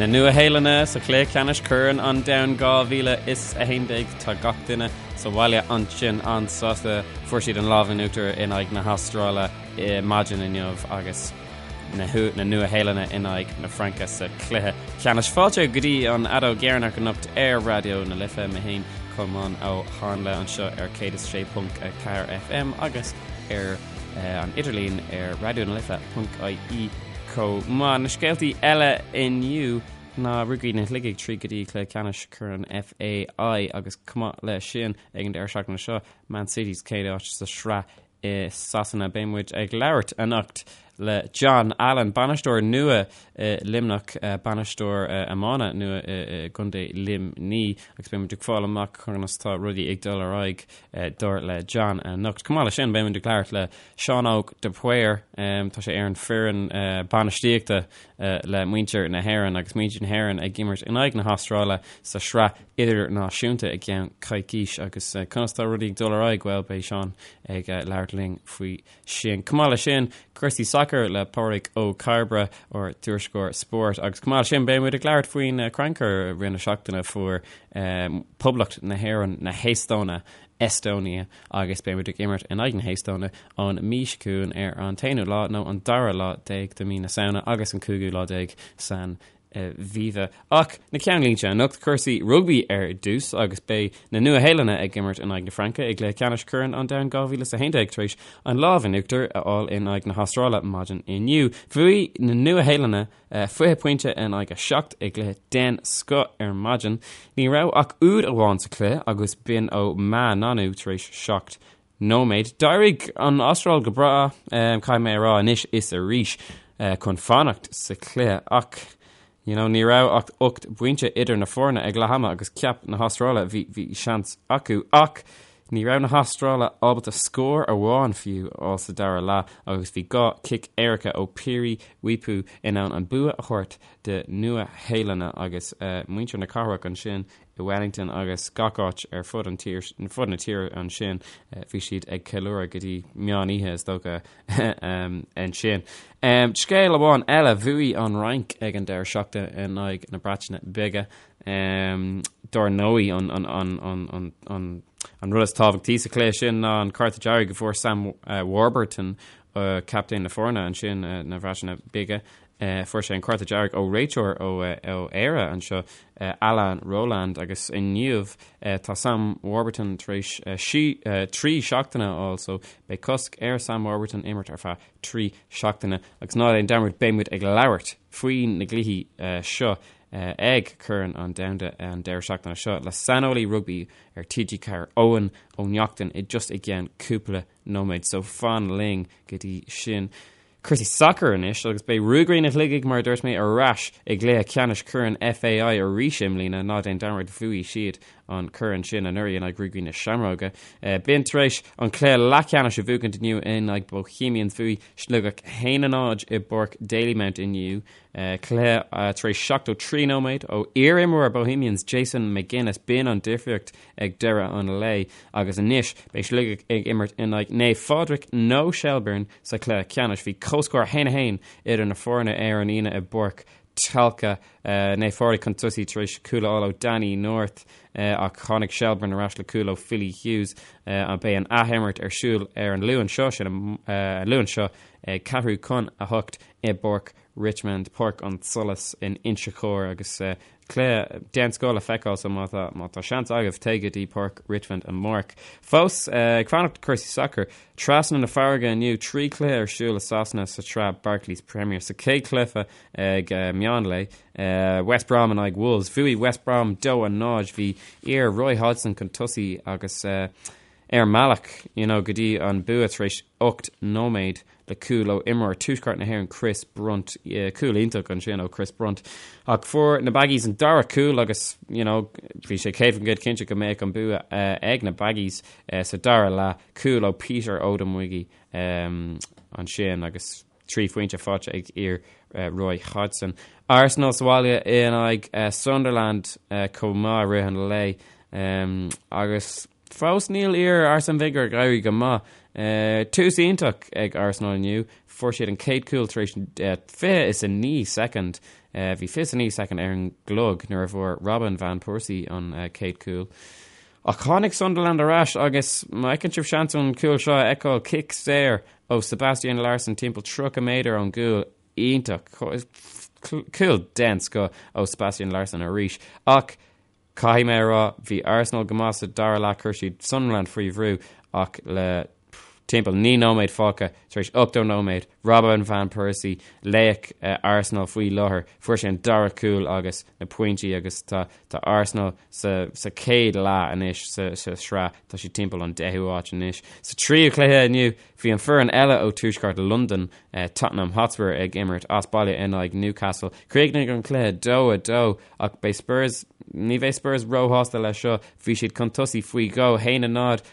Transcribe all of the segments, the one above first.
Nua-Shéalainne sa chluiche ceannais Corn an Domhain 2011. Tá gach duine sa bhaile ansin an-sásta. Fuair siad an lámh in uachtar in aghaidh na hAstráile maidin inniu agus na Nua-Shéalainne in aghaidh na Fraince sa chluiche ceannais. Fáilte go dtí an fheadóg dheireanach anocht ar Raidió na Life. Mé féin, Colmán Ó Háinle anseo ar 106.4 FM agus ar an idirlíon ar raidionalife.ie chomh maith. Na scéaltaí eile inniu ná Ruagairí na Shligigh tríd go dtí cluiche ceannais Chorn FAI agus chomh maith leis sin ag an deireadh seachtaine seo Man City sa chéad áit sa sraith i Sasana. Beidh muid ag labhairt anocht le John Allen, bainisteoir nua i Luimneach, bainisteoir iomána nua i gContae Luimní agus beidh muid ag fáil amach conas tá rudaí ag dul ar aghaidh dar le John anocht. Chomh maith leis sin, beidh muid ag labhairt le Seán Óg de Paor, tá sé ar an foireann bainistíochta le muintir na hÉireann agus muintir na hÉireann ag imirt in aghaidh na hAstráile sa sraith idirnáisiúnta i gceann coicís agus conas tá rudaí ag dul ar aghaidh, bhuel beidh Seán ag labhairt linn faoi sin. Chomh maith leis sin, cúrsaí sacair le Pádraig Ó Cairbre, ár dtuairisceoir spóirt agus chomh maith leis sin beidh muid ag labhairt faoin crannchur i rith na seachtaine fuair Poblacht na hÉireann na hEastóine, Estonia, agus beidh muid ag imirt in aghaidh na hEastóine an mhí seo chugainn ar an t-aonú lá nó an dara lá déag de mhí na Samhna agus an cúigiú lá déag san Aviva. Ach na ceannlínte anocht, cúrsaí rugbaí ar dtús agus beidh na Nua-Shéalainne ag imirt in aghaidh na Fraince i gcluiche ceannais Chorn an Domhain 2011 tar éis an lámh in uachtar a fháil in aghaidh na hAstráile maidin inniu. Bhuaigh na Nua-Shéalainne 20 pointe in aghaidh 7 i gcluiche den scoth ar maidin. Ní raibh ach úd amháin sa chluiche agus b'in ó Ma'a Nonu tar éis 7 nóiméad. D'éirigh an Astráil go breá, caithfidh mé a rá anois is arís, chun fanacht sa chluiche ach you know, ní raibh ach 8 bpointe idir na foirne ag leath ama agus cheap na hAstráile bhí bhí seans acu ach ní raibh na hAstráile ábalta scór amháin fiú a fháil sa dara leath agus bhí 2 chic éirice ó Piri Weepu in ann an bua a thabhairt do Nua-Shéalainne agus muintir na cathrach ansin i Wellington agus gach áit ar fud an tír, fud na tíre ansin bhí siad ag ceiliúradh go dtí meán oíche is dócha ansin. Scéal amháin eile, bhuaigh an Fhrainc ag an deireadh seachtaine in aghaidh na Breataine Bige. Dar ndóigh an, an, an, an, an, an, an rud is tábhachtaí sa chluiche sin ná an cárta dearg a fuair Sam Warburton, captaen na foirne ansin na Breataine Bige. Fuair sé an cárta dearg ó réiteoir ó Éire anseo, Alain Rolland, agus inniu tá Sam Warburton tar éis 3 seachtaine a fháil so beidh cosc ar Sam Warburton imirt ar feadh 3 seachtaine. Agus ná déan dearmad beidh muid ag labhairt faoi na gcluichí seo ag Corn an Domhanda an deireadh seachtaine seo le saineolaí rugbaí ar TG4 Eoin Ó Neachtain i just i gceann cúpla nóiméad so fan linn go dtí sin. Cúrsaí sacair anois agus beidh Ruagairí na Shligigh, mar a dúirt mé, ar ais i gcluiche ceannais Chorn FAI arís i mbliana. Ná déan dearmad, bhuaigh siad an corn sin anuraidh in aghaidh Ruagairí na Seamróige. B'in tar éis an cluiche leathcheannais a bhuachaint inniu in aghaidh Bohemians. Bhuaigh Sligeach 1-0 i bPáirc Dalymount inniu. Cluiche tar éis 73 nóiméad ó iar-imreoir Bohemians Jason McGuinness. B'in an difríocht ag deireadh an lae agus anois beidh Sligeach ag imirt in aghaidh Naomh Phádraig nó Shelbourne sa chluiche ceannais. Bhí comhscór 1-1 idir na foirne ar an Aoine i bPáirc Tolka. Naomh Phádraig chun tosaigh tar éis cúl a fháil ó Danny North ach tháinig Shelbourne ar ais le cúl ó Philly Hughes. Beidh an athimirt ar siúl ar an Luan seo, sin an Luan seo ag ceathrú chun a hocht i bPáirc Richmond, Páirc an tSolais in Inse Chór agus Cluiche den scoth le feiceáil so má tá má tá seans agaibh téigh go dtí Páirc Richmond amárach. Fós ag fanacht cúrsaí sacair, trasna na farraige inniu, 3 chluiche ar siúl i Sasana sa tsraith Barclays Premier. Sa chéad chluiche ag meán lae, West Brom in aghaidh Wolves. Bhuaigh West Brom 2-0, bhí iar Roy Hodgson chun tosaigh agus ar an mbealach you know go dtí an bua tar éis 8 nóiméad le cúl ó imreoir Tuaisceart na hÉireann Chris Brunt, cúl iontach ansin ó Chris Brunt. Ach fuair na Baggies an dara cúl agus you know bhí sé 100% cinnte go mbeadh an bua ag na Baggies sa dara leath, cúl ó Peter Odemwingie ansin agus 3 phointe faighte ag iar Roy Hodgson. Arsenal sa bhaile in aghaidh Sunderland chomh maith i rith an lae agus Fós níl iar Arsene Wenger ag éirí go maith. Tús iontach ag Arsenal inniu. Fuair siad an chéad chúl tar éis 29 soicind. Bhí 29 soicind ar an gclog nuair a bhfuair Robin van Persie an chéad chúl. Ach tháinig Sunderland ar ais agus má fheiceann sibh seans an cúl seo a fheiceáil, cic saor ó Sebastian Larsson timpeall 30 méadar ón gcúl. Iontach. Cúl den scoth ó Sebastian Larsson arís. Ach caithfidh mé a rá, bhí Arsenal go maith sa dara leath, chuir siad Sunderland faoi bhrú ach le timpeall 9 nóiméad fágtha tar éis 80 nóiméad, Robin van Persie, laoch Arsenal faoi láthair, fuair sé an dara cúl agus na pointí agus tá tá Arsenal sa sa chéad leath anois sa sa sraith, tá siad timpeall an deichiú áit anois. Sa tríú cluiche inniu, bhí an foireann eile ó tuaisceart Londain, Tottenham Hotspur ag imirt as baile in aghaidh Newcastle. Chríochnaigh an cluiche 2-2 ach beidh Spurs, ní bheidh Spurs róshásta leis seo, bhí siad chun tosaigh faoi dhó, 1-0,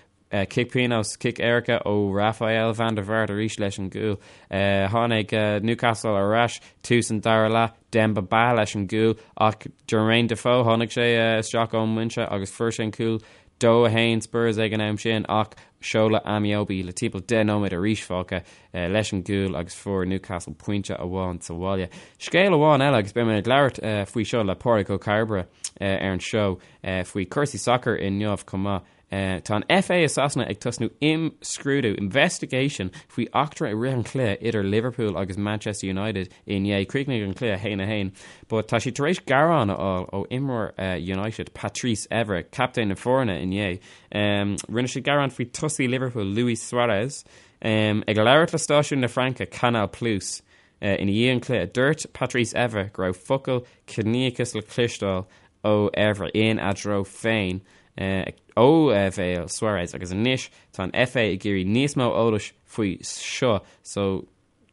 Cic pionóis, cic éirice ó Rafael van der Vaart arís leis an gcúl. Tháinig Newcastle ar ais tús an dara leath, Demba Ba leis an gcúl ach Jermaine Defoe, tháinig sé isteach ón mbinse agus fuair sé an cúl 2-1 Spurs ag an am sin ach Shola Ameobi le timpeall 10 nóiméad arís fágtha leis an gcúl agus fuair Newcastle pointe amháin sa bhaile. Scéal amháin eile agus beidh mé ag labhairt faoi seo le Pádraig Ó Cairbre ar an seó faoi chúrsaí sacair inniu chomh maith. Tá an FA i Sasana ag tosnú imscrúdú, investigation, faoi eachtra i rith an chluiche idir Liverpool agus Manchester United inné. Chríochnaigh an cluiche 1-1, but tá siad tar éis gearán a fháil ó imreoir United, Patrice Evra, captaen na foirne inné. Rinne sé gearán faoi tosaí Liverpool, Luis Suarez, ag labhairt le stáisiún na Fraince, Canal Plus, ina dhiaidh an chluiche. Dúirt Patrice Evra go raibh focail ciníochas le cloisteáil ó Evra ina dtreo féin ó bhéal Suarez agus anois tá an FA ag iarraidh níos mó eolais faoi seo so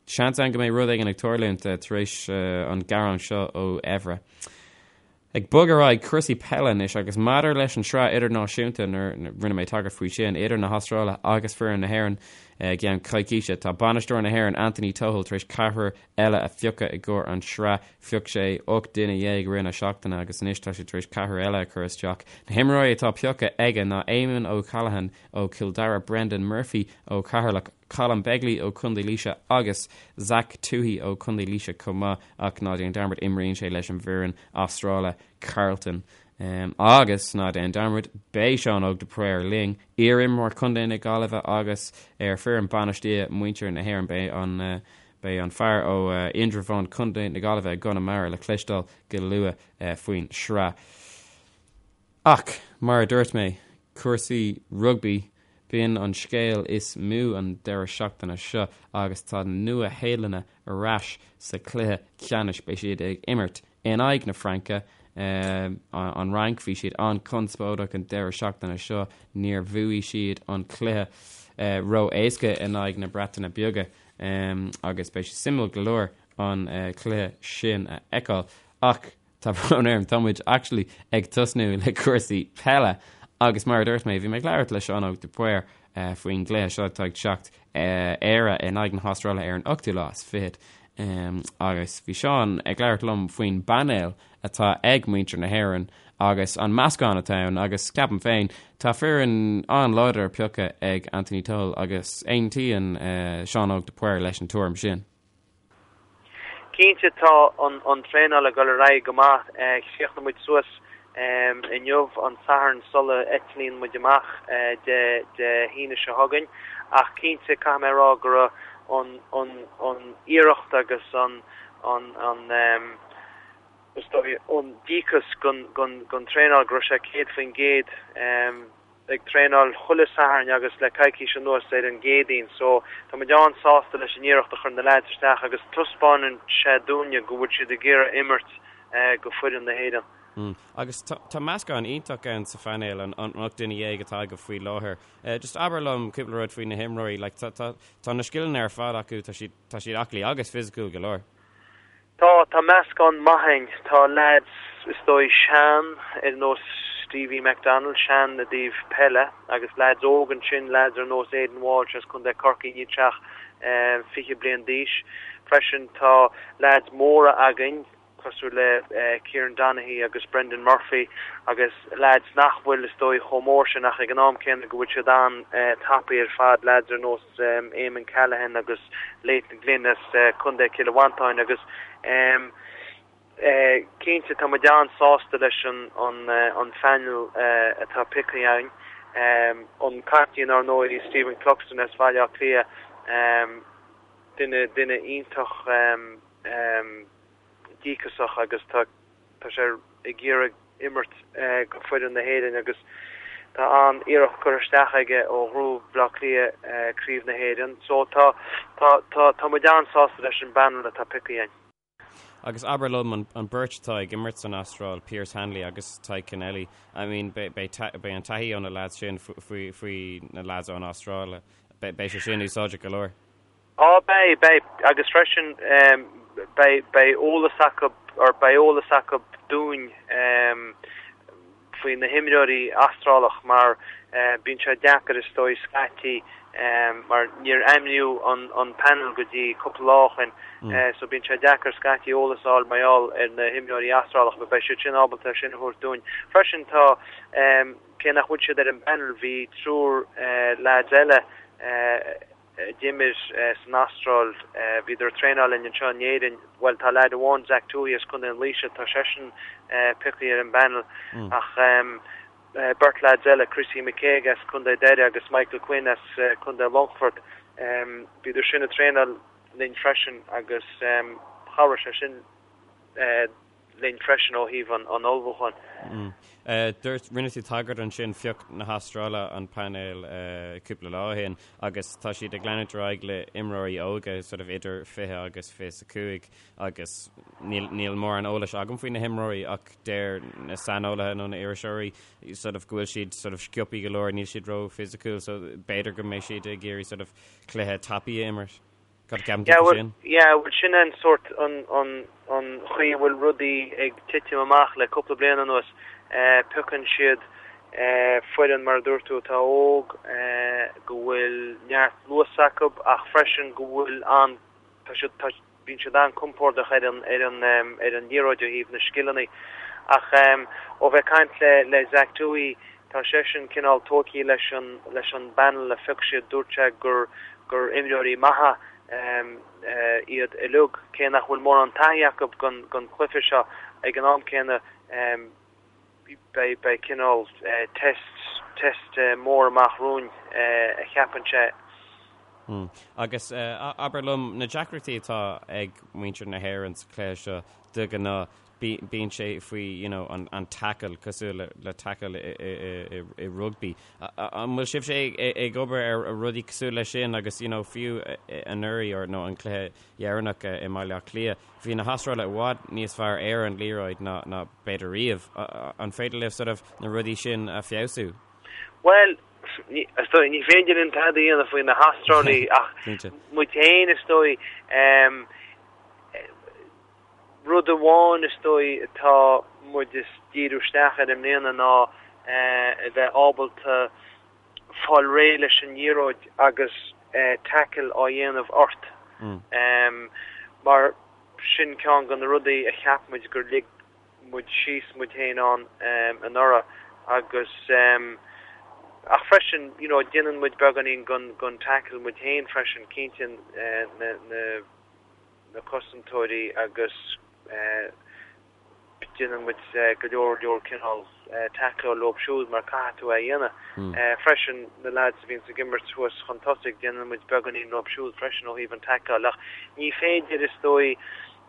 seans ann go mbeidh rud éigin ag tarlúint tar éis an gearán seo ó Evra. Ag bogadh ar aghaidh, cúrsaí peile anois agus maidir leis an sraith idirnáisiúnta nuair rinne mé tagairt faoi sin idir na hAstráile agus foireann na hÉireann i gceann coicíse tá bainisteoir na hÉireann Anthony Tohill tar éis ceathrar eile a phiocadh i gcomhair an sraith. Phioc sé 18 duine i rith na seachtaine agus anois tá sé tar éis ceathrar eile a chur isteach. Na himreoirí atá pioctha aige ná Eamon O'Callaghan ó Chill Dara, Brendan Murphy ó Cheatharlach, Colm Begley ó Chontae Laoise agus Zach Tuohy ó Chontae Laoise chomh maith ach ná déan dearmad imríonn sé leis an bhfoireann Astráile Carlton. Agus ná déan dearmad beidh Seán Óg de Paor linn, iar-imreoir Chontae na Gaillimhe agus ar foireann bainistíochta muintir na hÉireann. Beidh an Beidh an fear ó Indreabhán, Contae na Gaillimhe i gConamara le cloisteáil go luath faoin sraith. Ach, mar a dúirt mé, cúrsaí rugbaí, b'in an scéal is mó an deireadh seachtaine seo agus tá na Nua-Shéalannaigh ar ais sa chluiche ceannais. Beidh siad ag imirt in aghaidh na Fraince. An Fhrainc, bhí siad an-chonspóideach an deireadh seachtaine seo, níor bhuaigh siad an cluiche ró-éasca in aghaidh na Breataine Bige agus beidh sé suimiúil go leor an cluiche sin a fheiceáil. Ach tá brón orm, tá muid actually ag tosnú le cúrsaí peile agus mar a dúirt mé, bhí mé ag labhairt le Seán Óg de Paor faoin gcluiche seo atá ag teacht Éire in aghaidh na hAstráile ar an ochtú lá is fichead agus bhí Seán ag labhairt liom faoin bpainéal atá ag muintir na hÉireann agus an meascán atá ann agus ceapaim féin tá foireann an-láidir pioctha ag Anthony Tohill agus aontaíonn Seán Óg de Paor leis an tuairim sin. Cinnte tá an traenáil ag dul ar aghaidh go maith. Chríochnaigh muid suas inniu, an Satharn, sula eitlíonn muid amach Dé hAoine seo chugainn. Ach cinnte caithfidh mé a rá go raibh an iarracht agus an is dóigh an díocas don traenáil go raibh sé 100%. ag traenáil chuile Satharn agus le coicís anuas ar an gCéadaoin so tá muid an-sásta leis an iarracht a chuir na leaids isteach agus taispeánann sé dúinne go bhfuil siad ag iarraidh imirt go foireann na hÉireann. Mm. Agus tá meascán iontach ann sa phainéal, an 18 duine atá agaibh faoi láthair. Just abair liom cúpla rud faoi na himreoirí, like tá tá tá na scileanna ar fad acu, tá siad tá siad aclaí agus fisiciúil go leor. Tá, tá meascán maith a'inn. Tá leaids, is dóigh, sean, ar nós Stevie McDonald, sean i dtaobh peile, agus leaids óg ansin, leaids ar nós Aidan Walsh as Contae Corcaí, níl sé ach 20 bliain d'aois. Freisin tá leaids móra againn, cosúil le Kieran Donaghy agus Brendan Murphy, agus leaids nach bhfuil, is dóigh, chomh mór sin ach ag an am céanna go bhfuil siad an-tapaidh ar fad, leaids ar nós Eamon Callaghan agus Leighton Glynn as Contae Chill Mhantáin agus. cinnte tá muid an-sásta leis an an phainéal atá pioctha againn. An captaen ar ndóigh Stephen Cluxton as Bhaile Átha Cliath, duine duine iontach díocasach agus tá tá sé ag iarraidh imirt go foireann na hÉireann agus tá an-iarracht curtha isteach aige ó ghnóthaigh Baile Átha Cliath Craobh na hÉireann. So tá tá tá tá muid an-sásta leis an bpainéal atá pioctha againn. Agus abair liom an an beirt atá ag imirt san Astráil, Pearce Hanley agus Tadhg Kennelly, I mean beidh beidh beidh an taithí ó na lads sin faoi faoi na lads ón Astráil, beidh beidh sé sin úsáideach go leor. Á, beidh, beidh, agus freisin beidh, beidh eolas acu, or beidh eolas acu dúinn faoi na himreoirí Astrálach mar bíonn sé deacair is dóigh scaití mar níor ainmníodh an, an panel go dtí cúpla lá ó shin so bíonn sé deacair scaití eolas a fháil mar gheall ar na himreoirí Astrálach but beidh siad sin ábalta sin a thabhairt dúinn. Freisin tá, cé nach bhfuil siad ar an bpanel, bhí triúr lads eile a d'imir san Astráil. Bhíodar ag traenáil linn anseo in Éirinn. Bhuel, tá leaid amháin, Zach Tuohy as Contae an Laoise, tá seisean pioctha ar an bpanel. Ach beirt leaids eile, Chrissy McKaigue as Contae Doire agus Michael Quinn as Contae Longfort, bhíodar sin ag traenáil linn freisin agus chabhraigh sé sin linn freisin ó thaobh an ullmhúcháin. Dúirt, rinne tú tagairt ansin, phioc na hAstráile an painéal cúpla lá ó shin agus tá siad ag leanúint ar aghaidh le imreoirí óga sort of idir 20 agus 25 agus níl, níl mórán eolais agam faoi na himreoirí ach deir na saineolaithe nó na iriseoirí sort of go bhfuil siad sort of sciobtha go leor, níl siad ró-fhisiciúil so b'fhéidir go mbeidh siad ag iarraidh sort of cluiche tapaidh a imirt. Cad a cheapann tú faoi sin? Yeah, bhuel sin an sórt an an an chaoi a bhfuil rudaí ag titim amach le cúpla bliain anuas. Piocann siad foireann mar a dúirt tú atá óg, go bhfuil neart luas acu ach freisin go bhfuil an tá siad tá bíonn siad an-compordach ar an ar an ar an liathróid ó thaobh na scileanna. Ach ó bheith ag caint le le Zach Tuohy Tá seisean cineál tógtha leis an leis an bpanel a phioc siad. Dúirt sé gur gur imreoirí maithe iad uilig, cé nach bhfuil mórán taithí acu gon gon chluiche seo. Ag an am céanna beidh beidh cineál test test mór amach romhainn a cheapann sé. Agus abair liom, na deacrachtaí atá ag muintir na hÉireann sa chluiche seo de ghnáth, bíonn sé faoi you know an an tackle cosúil le le tackle i i i i rugbaí. An bhfuil sibhse ag ag obair ar rudaí cosúil leis sin agus you know fiú anuraidh or nó an cluiche dheireanach i mBaile Átha Cliath, bhí na hAstrálaigh i bhfad níos fearr ar an liathróid ná ná b'fhéidir riamh. An féidir libh sort of na rudaí sin a feabhsú? Bhuel, ní is dóigh ní féidir linn tada a dhéanamh faoi na hAstrálaigh ach muid féin is dóigh Rud amháin is dóigh atá muid ag díriú isteach air i mbliana ná a bheith ábalta fáil réidh leis an liathróid agus tackle á dhéanamh ort. Mar sin ceann de na rudaí a cheap muid gur lig muid síos muid féin ann anuraidh agus ach freisin you know déanann muid beagáinín den tackle muid féin freisin, cinnte na na na cosantóirí agus déanann muid go leor leor cineál tackle leo siúd mar caithfidh tú é a dhéanamh. Freisin na lads a bhíonns ag imirt thuas chun tosaigh déanann muid beagáinín leo siúd freisin ó thaobh an tackle ach ní féidir is dóigh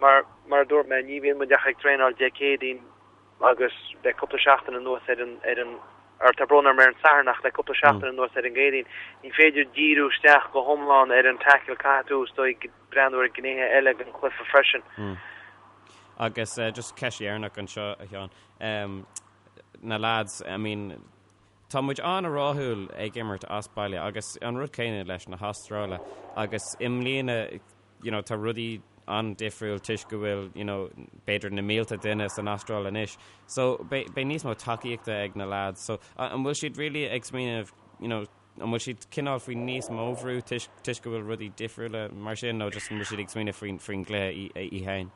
mar mar a dúirt mé ní bhíonn muid ach ag traenáil Dé Céadaoin agus le cúpla seachtain anuas ar an ar an ar tá brón orm ar an Satharn ach le cúpla seachtain anuas ar an gCéadaoin ní féidir díriú isteach go hiomlán ar an tackle caithfidh tú is dóigh breathnú ar gnéithe eile den chluiche freisin. Agus just ceist dheireanach anseo a Sheáin. Na lads, I mean, tá muid an-rathúil ag imirt as baile agus an rud céanna leis na hAstráile agus i mbliana you know, tá rudaí an-difriúil toisc go bhfuil you know, b'fhéidir na mílte duine san Astráil anois. So beidh níos mó tacaíochta ag na lads. So an bhfuil siad really ag smaoineamh you know, An bhfuil siad cineál faoi níos mó bhrú toisc go bhfuil rudaí difriúla mar sin nó just an bhfuil siad ag smaoineamh faoin faoin gcluiche í féin?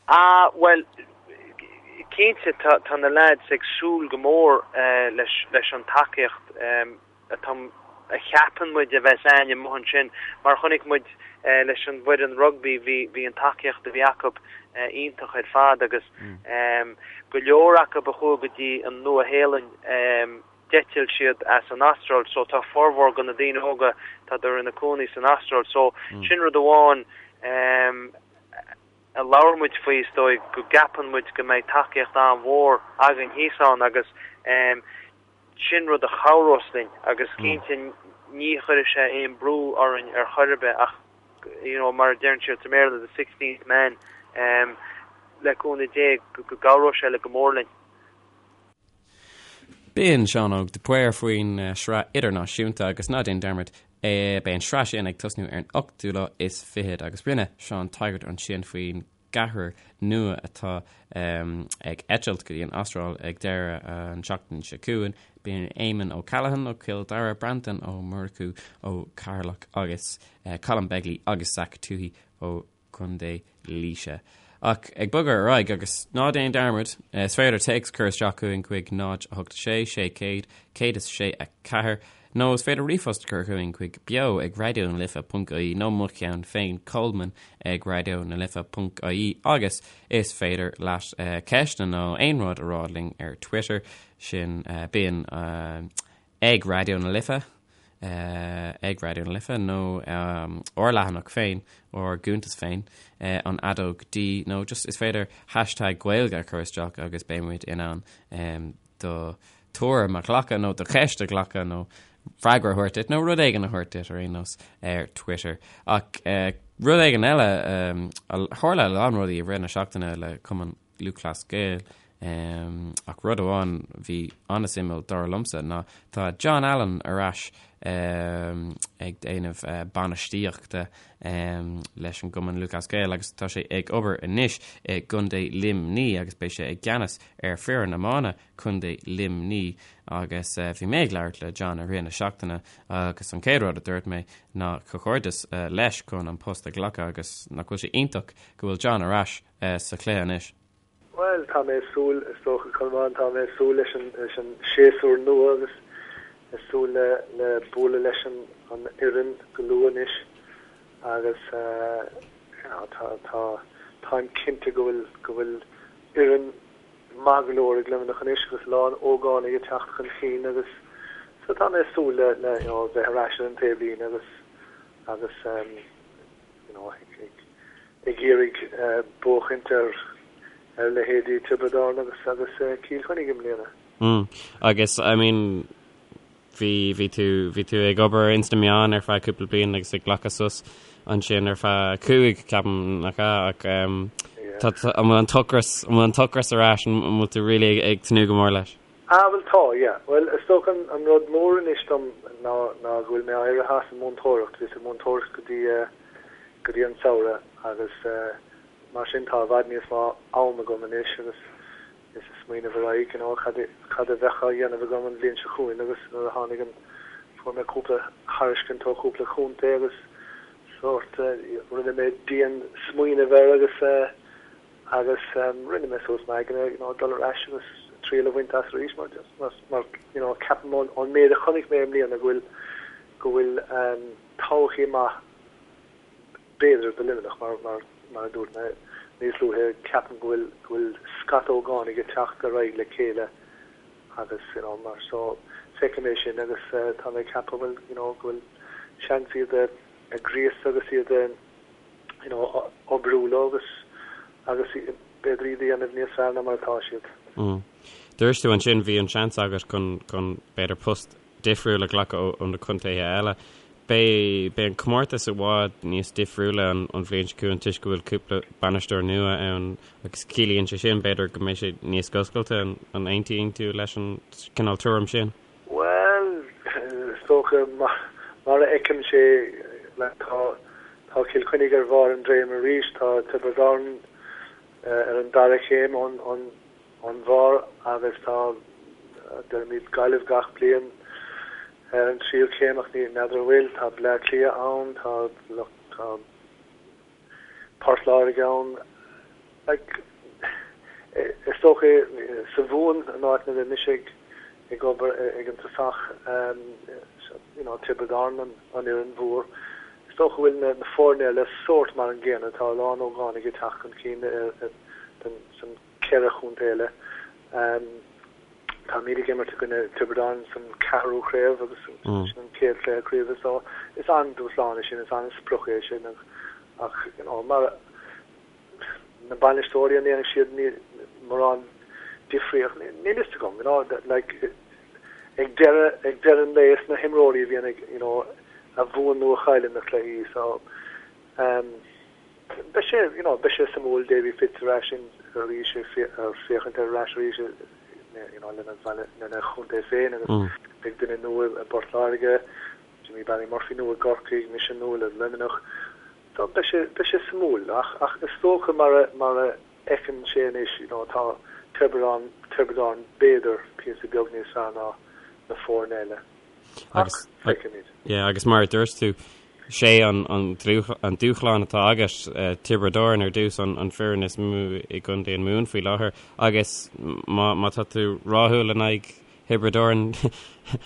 Ah, bhuel, cinnte tá tá na lads ag súil go mór leis leis an tacaíocht atá a cheapann muid a bheas a'ainn amuigh ansin mar chonaic muid leis an bhfoireann rugbaí bhí bhí an tacaíocht a bhí acu. iontach ar fad agus go leor acu a chuaigh go dtí an Nua-Shéalainn d'eitil siad as an Astráil so tá formhór de na daoine óga tádar ina cónaí san Astráil so sin rud amháin a labhair muid faoi is dóigh go gceapann muid go mbeidh tacaíocht an-mhór againn thíos ann agus sin rud a chabhrós linn agus cinnte ní chuirfidh sé aon brú orainn ar chor ar bith ach you know mar a deireann siad sa mBéarla the sixteenth man le cúnamh Dé go gcabhróidh sé le go mór linn. B'in Seán Óg de Paor faoin sraith idirnáisiúnta agus ná déan dearmad beidh an sraith sin ag tosnú ar an ochtú lá is fichead agus rinne Seán tagairt ansin faoin gceathrar nua atá ag eitilt go dtí an Astráil ag deireadh an tseachtain seo chugainn. B'in Éamonn O'Callaghan ó Chill Dara, Breandán Ó Murchú ó Cheatharlach agus Colm Begley agus Zach Tuohy ó Chontae Laoise. Ach ag bogadh ar aghaidh, agus ná déan dearmad, is féidir téacs a chur isteach chugainn chuig 0 8 6 600 106 4 nó is féidir ríomhphost a chur chugainn chuig beo ag raidió na life ponc ie nó mo cheann féin Coleman ag raidió na life ponc ie agus is féidir leat ceisteanna nó aon rud a rá linn ar Twitter sin bíonn ag Raidió na Life ag Raidió na Life nó ár leathanach féin, ár gcuntas féin, an fheadóg D nó just is féidir hashtag Gaeilge a chur isteach agus beidh muid in ann do tuairim a ghlacadh nó do cheist a ghlacadh nó freagra a thabhairt duit nó rud éigin a thabhairt duit ar aon nós ar Twitter. Ach rud éigin eile, tharla a lán rudaí i rith na seachtaine le Cumann Lúthchleas Gael. Ach rud amháin a bhí an-suimiúil dar liomsa ná tá John Allen ar ais ag déanamh bainistíochta leis an gCumann Lúthchleas Gael agus tá sé ag obair anois i gContae Luimní agus beidh sé i gceannas ar foireann iomána Contae Luimní agus bhí mé ag labhairt le John i rith na seachtaine agus an chéad rud a dúirt mé ná comhghairdeas leis chun an post a ghlacadh agus nach bhfuil sé iontach go bhfuil John ar ais sa chluiche anois. Bhuel, tá mé ag súil, is dócha, Colmán, tá mé ag súil leis an, leis an séasúr nua agus ag súil le, le bualadh leis an, an fhoireann go luath anois agus you know, tá, tá, táim cinnte go bhfuil, go bhfuil fhoireann maith go leor ag Luimneach anois agus a lán ógánaigh ag teacht chun cinn agus so tá mé ag súil le, le, you know, bheith ar ais ar an taobhlíne agus, agus you know, ag, ag iarraidh buachaint ar ar leithéidí Tiobraid Árann agus agus Cill Chainnigh i mbliana. Mm. Agus I mean bhí bhí tú bhí tú ag obair ins na meáin ar feadh cúpla bliain agus ag glacadh sos ansin ar feadh cúig ceapaim nach ea ach um, tá an bhfuil an t-ocras an bhfuil an t-ocras ar ais an bhfuil tú really ag, ag tnúth go mór leis? Ah bhuel tá, yeah. Bhuel is dócha an, an rud mór anois dom ná ná go bhfuil mé éirithe as an múinteoireacht. Bhíos ag múinteoireacht go dtí eh, go dtí an samhradh agus mar sin tá i bhfad níos mó am agam anois agus is ag smaoineamh ar aghaidh you know cad cad a bheadh á dhéanamh agam an bhliain seo chugainn agus nuair a tháinig an fuair mé cúpla thairiscint ó chúpla chontae agus sórt rinne mé dian smaoineamh air agus agus rinne mé suas m'aigne you know dul ar ais agus triail a bhaint as arís mar mar mar you know ceapaim ón ón méid a chonaic mé i mbliana go bhfuil go bhfuil todhchaí maith b'fhéidir do Luimneach mar mar mar a dúirt mé níos luaithe ceapaim go bhfuil go bhfuil scata ógánaigh ag teacht ar aghaidh le chéile agus you know mar so feicim é sin agus tá mé ag ceapadh bhfuil you know go bhfuil seans iad a a ghríosadh agus iad a you know oibriú leo agus agus b'fhéidir iad a dhéanamh níos fearr ná mar atá siad. Mm. Dúirt tú ansin bhí an seans agat chun chun b'fhéidir post difriúil a ghlacadh ó na contaetha eile. Beidh beidh an comórtas i bhfad níos difriúla an an bhliain seo chugainn toisc go bhfuil cúpla bainisteoir nua ann agus ciallaíonn sé sin b'fhéidir go mbeidh sé níos oscailte. An an aontaíonn tú leis an cineál tuairim sin? Bhuel, is dócha mar mar a fheicim sé like tá tá Cill Chainnigh ar bharr an dréim arís, tá Tiobraid Árann ar an dara chéim ón ón ón bharr agus tá, deirimid Gaillimh gach bliain ar an tríú céim ach ní n'fheadar an bhfuil, tá Bleá Cliath ann, tá tá Port Láirge ann, like is dócha sa Mhumhain an áit ina raibh mise ag ag obair ag an tosach you know Tiobraid Árann an an fhoireann mhór. dócha go bhfuil na foirne eile sórt mar an gcéanna, tá a lán ógánaigh ag teacht chun cinn san cheithre chontae eile. Táimid ag imirt i gcoinne Tiobraid Árann san ceathrú craobh agus sin an chéad chluiche craoibhe so is an-dúshlán é sin, is an-sprioc é sin ach you know mar na bainisteoirí an ndéanfaidh siad mórán difríocht níl fhios agam you know like ag deireadh ag deireadh an lae is na himreoirí a bhíonn ag you know a bhuann nó a chailleann na cluichí so um, beidh sé you know beidh sé suimiúil Davy Fitz ar ais in arís ag féachaint ar ais arís you know lena lena chontae féin agus mm. beidh duine nua i bPort Láirge Jimmy Barry Murphy nua i gCorcaigh mise nua le Luimneach So beidh sé, beidh sé suimiúil ach, ach is dócha mar a, mar a fheiceann sé anois, you know, tá Tiobraid Árann, Tiobraid Árann b'fhéidir píosa beag níos fearr ná na foirne eile. Ach Agus, feicfimid. yeah, agus mar a dúirt tú, sé an, an, an dúshlán atá agat, Tiobraid Árann ar dtús, an, an foireann is mó i gContae an Mumhan faoi láthair, agus má, má tá tú rathúil in aghaidh Thiobraid Árann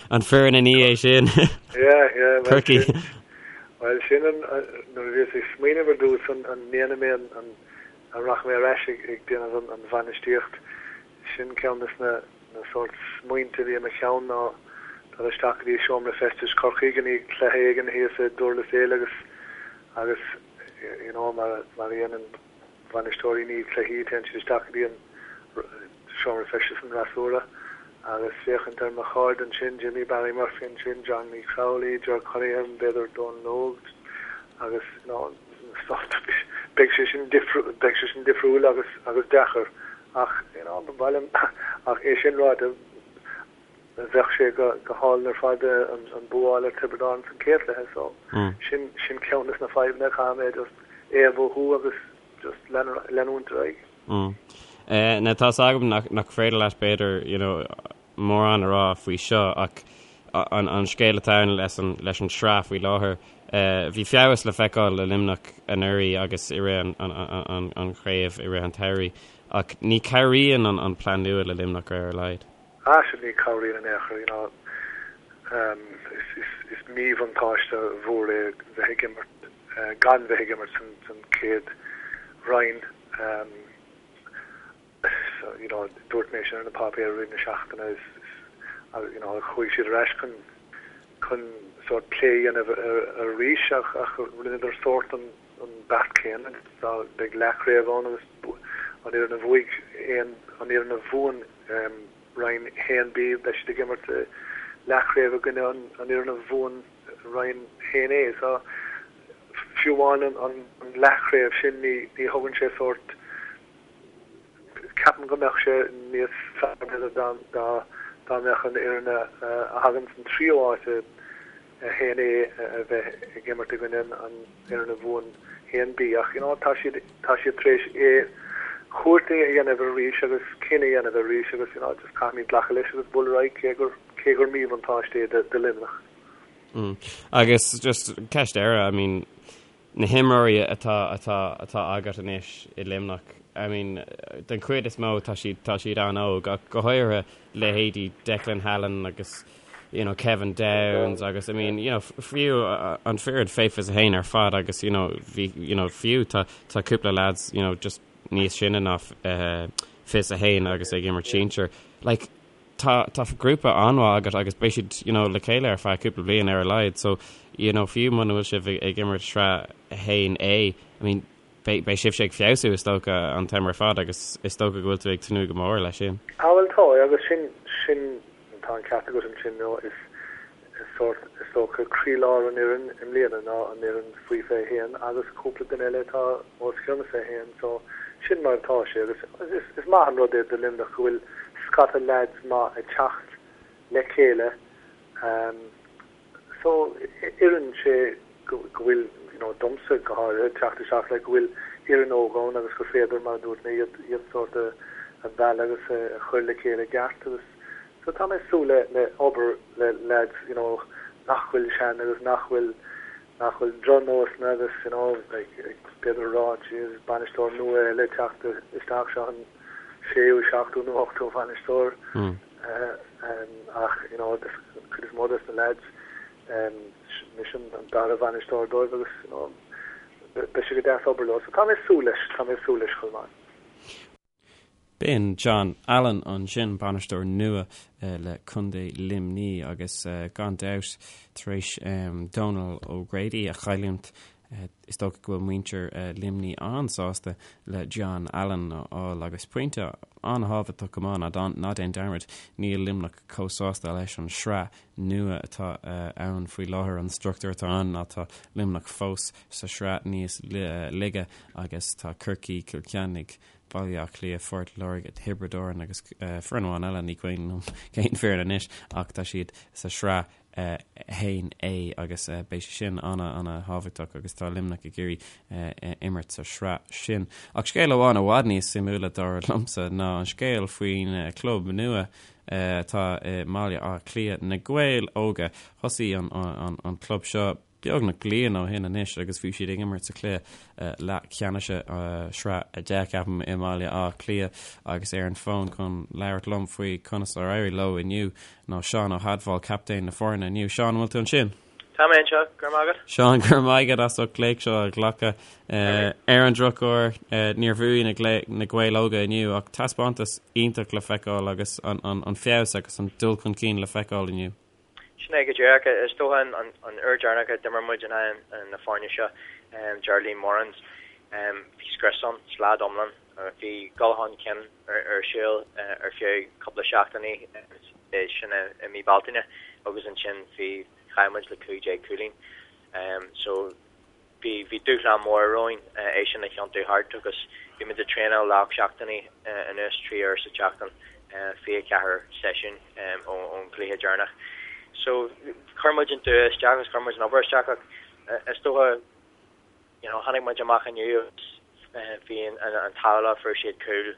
an foireann ina dhiaidh sin. Yeah, yeah, well, Corcaigh. sin, well, sin an, nuair a bhíos ag smaoineamh ar dtús an, an ndéanfaidh mé an, an, an rachaidh mé ar ais ag, ag déanamh an, an bhainistíocht, sin ceann des na, na sórt smaointe a bhí i mo cheann ná dul isteach go dtí seomra feistis Chorcaigh i ndiaidh cluiche éigin thíos i Durlas Éile agus, agus, you know, mar, mar a dhéanann bainisteoirí i ndiaidh cluichí, téann siad isteach go dtí an seomra feistis an fhreasúra agus féachaint ar mo chairde ansin, Jimmy Barry Murphy ansin, Johnny Crowley, Ger Cunningham, b'fhéidir Donal Óg agus you know beidh sé sin beidh sé sin difriúil agus agus deacair ach you know ba mhaith liom ach é sin ráite bheadh sé go go hálainn ar fad an bua a fháil ar Tiobraid Árann san chéad chluiche so sin sin ceann des na fadhbanna caithfidh mé just é a mhothú agus just leanúint ar aghaidh. Mm. Now tá's agam nach nach féidir leat b'fhéidir you know mórán a rá faoi seo ach an an scéal atá ann leis an leis an tsraith faoi láthair bhí feabhas le feiceáil le Luimneach anuraidh agus i rith an an an an chraobh i rith an tsamhraidh ach ní cabhraíonn an an plean nua le Luimneach ar a laghad. Ah sin ní cabhraíonn in aon chor you know is is is míbhuntáiste mhór é bheith ag imirt gan bheith ag imirt san san chéad roinn so you know dúirt mé sin ar na páipéir i rith na seachtaine is is you know chuaigh siad ar ais chun chun sórt plé a dhéanamh arís ach ach rinneadar sórt an an beart céanna dá beidh leathchraobh ann agus an fhoireann a bhuaigh aon an fhoireann a bhuann Roinn 1B, beidh siad ag imirt leathchraobh i gcoinne an fhoireann a bhuann Roinn 1A. So, fiú amháin an leathchraobh sin, ní thugann sé sórt, ceapaim go mbeadh sé níos fearr b'fhéidir dá mbeadh an fhoireann a thagann san tríú háit i 1A a bheith ag imirt i gcoinne an fhoireann a bhuann 1B ach you know tá siad tá siad tar éis é cuairt a dhéanamh arís agus cinneadh a dhéanamh arís agus you know just caithfimid glacadh leis agus bualadh ar aghaidh cé gur cé gur míbhuntáiste é do do Luimneach. Mm. Agus just ceist eile, I mean, na himreoirí atá atá atá agat anois i Luimneach, I mean, den chuid is mó tá siad tá siad an-óg ach go háirithe leithéidí Declan Hallen agus you know, Kevin Downes agus I mean, you know, fiú an foireann fé 21 ar fad agus you know, bhí you know, fiú tá tá cúpla lads you know, just níos sine ná uh, 21 agus ag imirt sinsir. Like, tá tá grúpa an-mhaith agat agus beidh siad you know, le chéile ar feadh cúpla bliain ar a laghad so you know, fiú muna bhfuil sibh ag, ag imirt sraith 1A I mean, beidh beidh sibhse ag feabhsú is dócha an t-am ar fad agus is dócha go bhfuil tú ag tnúth go mór leis sin. Ah bhuel tá agus sin sin tá an ceart agat ansin nó is is sórt is dócha croílár an fhoireann i mbliana ná an fhoireann faoi 21 agus cúpla duine eile atá os cionn 21 so sin mar atá sé agus is is maith an rud é do Luimneach go bhfuil scata leaids maith ag teacht le chéile um, So, oireann sé go bhfuil, you know, domsa go háirithe, teacht isteach le go bhfuil fhoireann óg ann agus gur féidir, mar a dúirt mé, iad, iad sórt a, a mhealladh agus a chur le chéile i gceart agus so tá mé ag súil le, le obair le lads, you know, nach bhfuil sean agus nach bhfuil, nach bhfuil drochnósanna agus, you know, like, b'fhéidir a rá, jeez, bainisteoir nua eile ag teacht isteach seo an séú, seachtú nó ochtú bhainisteoir. Ach, you know, cuid is mó des na lads, Mise an dara bhainisteoir dóibh agus you know beidh sé go deas obair leo. So tá mé ag súil leis, tá mé ag súil leis chomh maith. B'in John Allen ansin, bainisteoir nua le Contae Luimnigh agus gan dabht tar éis Donal O'Grady a chailliúint is dócha go bhfuil muintir Luimnigh an-sásta le John Allen a fháil agus pointe an-thábhachtach go maith ná déan dearmad níl Luimneach chomh sásta leis an sraith nua atá ann faoi láthair, an struchtúr atá ann ná tá Luimneach fós sa sraith níos laige agus tá Corcaigh, Cill Chainnigh, Baile Átha Cliath, Phort Láirge, Tiobraid Árann agus foireann amháin eile, ní cuimhin liom cén foireann anois ach tá siad sa sraith 1A agus beidh sé sin ana-ana-thábhachtach agus tá Luimneach ag iarraidh imirt sa sraith sin. Ach scéal amháin i bhfad níos suimiúla dar liomsa ná an scéal faoin club nua atá i mBaile Átha Cliath, Na Gaeil Óga. Thosaigh an club seo beagnach bliain ó shin anois agus bhí siad ag imirt sa chluiche leathcheannais sraith 10, ceapaim, i mBaile Átha Cliath agus ar an bhfón chun labhairt liom faoi conas ar éirigh leo inniu ná Seán Ó hAdmhail, captaen na foirne inniu. Seán, an bhfuil tú ansin? Tá mé anseo, go raibh maith agat. Seán, go raibh maith agat as ucht glaoch seo a ghlacadh. Ar an drochuair, níor bhuaigh na Gaeil Óga inniu ach taispeántas iontach le feiceáil agus an feabhas agus an dul chun cinn le feiceáil inniu. Sin é go díreach. Is dócha an uair deireanach a d'imir muid in aghaidh na foirne seo, Geraldine Morans, bhí scrios ann, slad iomlán. Bhí dul chun cinn ar siúl ar feadh cúpla seachtainí, sin i mí Bealtaine, agus ansin bhí Chaill muid le 15 cúilín. So bhí bhí dúshlán mór romhainn é sin a thiontú thart agus bhí muid ag traenáil le 8 seachtainí anuas, 3 uair sa tseachtain, 24 seisiún ón gcluiche deireanach. So chuir muid an dua isteach agus chuir muid an obair isteach ach is dócha you know tháinig muid amach inniu agus bhí an an t-ádh leo fuair siad cúl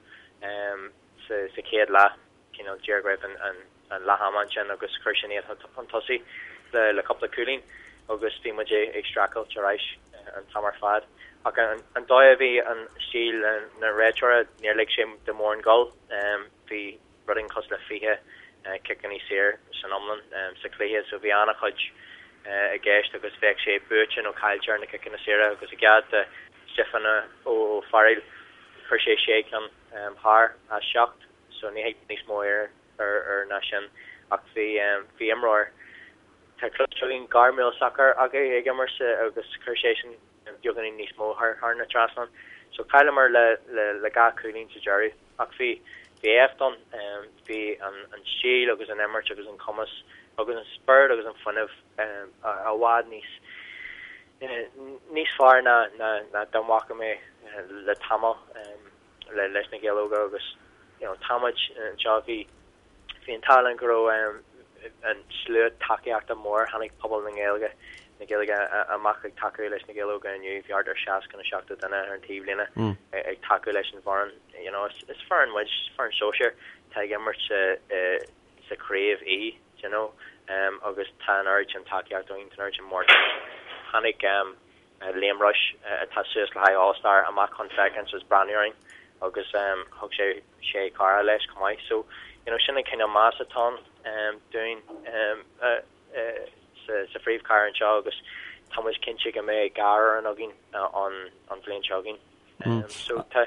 sa sa chéad leath. cineál díreach roimh an leath ama ansin agus chuir sin iad chun tosaigh le cúpla cúilín agus bhí muid ag streachailt ar ais an t-am ar fad. Ach an dóigh a bhí an stíl na réiteora, níor lig sé do mórán gol. Bhí rud éigin cosúil le 20 ciceanna saor san iomlán sa chluiche so bhí an-chuid i gceist agus bheadh sé buaite nó caillte ar na ciceanna saora agus i gcead do Stiofán Ó Fearghail chuir sé sé ceann thar as seacht. so ní thig níos mó air ar ná sin ach bhí bhí imreoir tá cloiste againn gairmiúil sacair acu ag imirt agus chuir seisean beagáinín níos mó thar thar na trasnán so chailleamar le le le dhá chúilín sa deireadh ach bhí bhí éacht ann bhí an an stíl agus an imirt agus an cumas agus an spiorad agus an fuinneamh i bhfad níos níos fearr ná ná ná dá bhfaca mé le tamall. le leis na Gaeil Óga agus you know tá muid anseo bhí bhí an t-ádh linn go raibh an slua tacaíochta mór tháinig pobal na nGaeilge na Gaeilge amach ag tacú leis na Gaeil Óga inniu bhí thart ar 60 nó 70 duine ar an taobhlíne ag tacú leis an bhfoireann you know is is foireann muid is foireann sóisir tá ag imirt sa sa chraobh í you know agus tá an oiread sin tacaíocht againn tá an oiread sin mórtas tháinig Liam Rushe atá suas le haghaidh All Star amach chun féachaint is breathnú orainn agus thug sé sé cara leis chomh maith. So you know sin an cineál meas atá ann dúinn sa phríomhchathair anseo agus tá muid cinnte go mbeidh dhá fhoireann againn an bhliain seo chugainn. So tá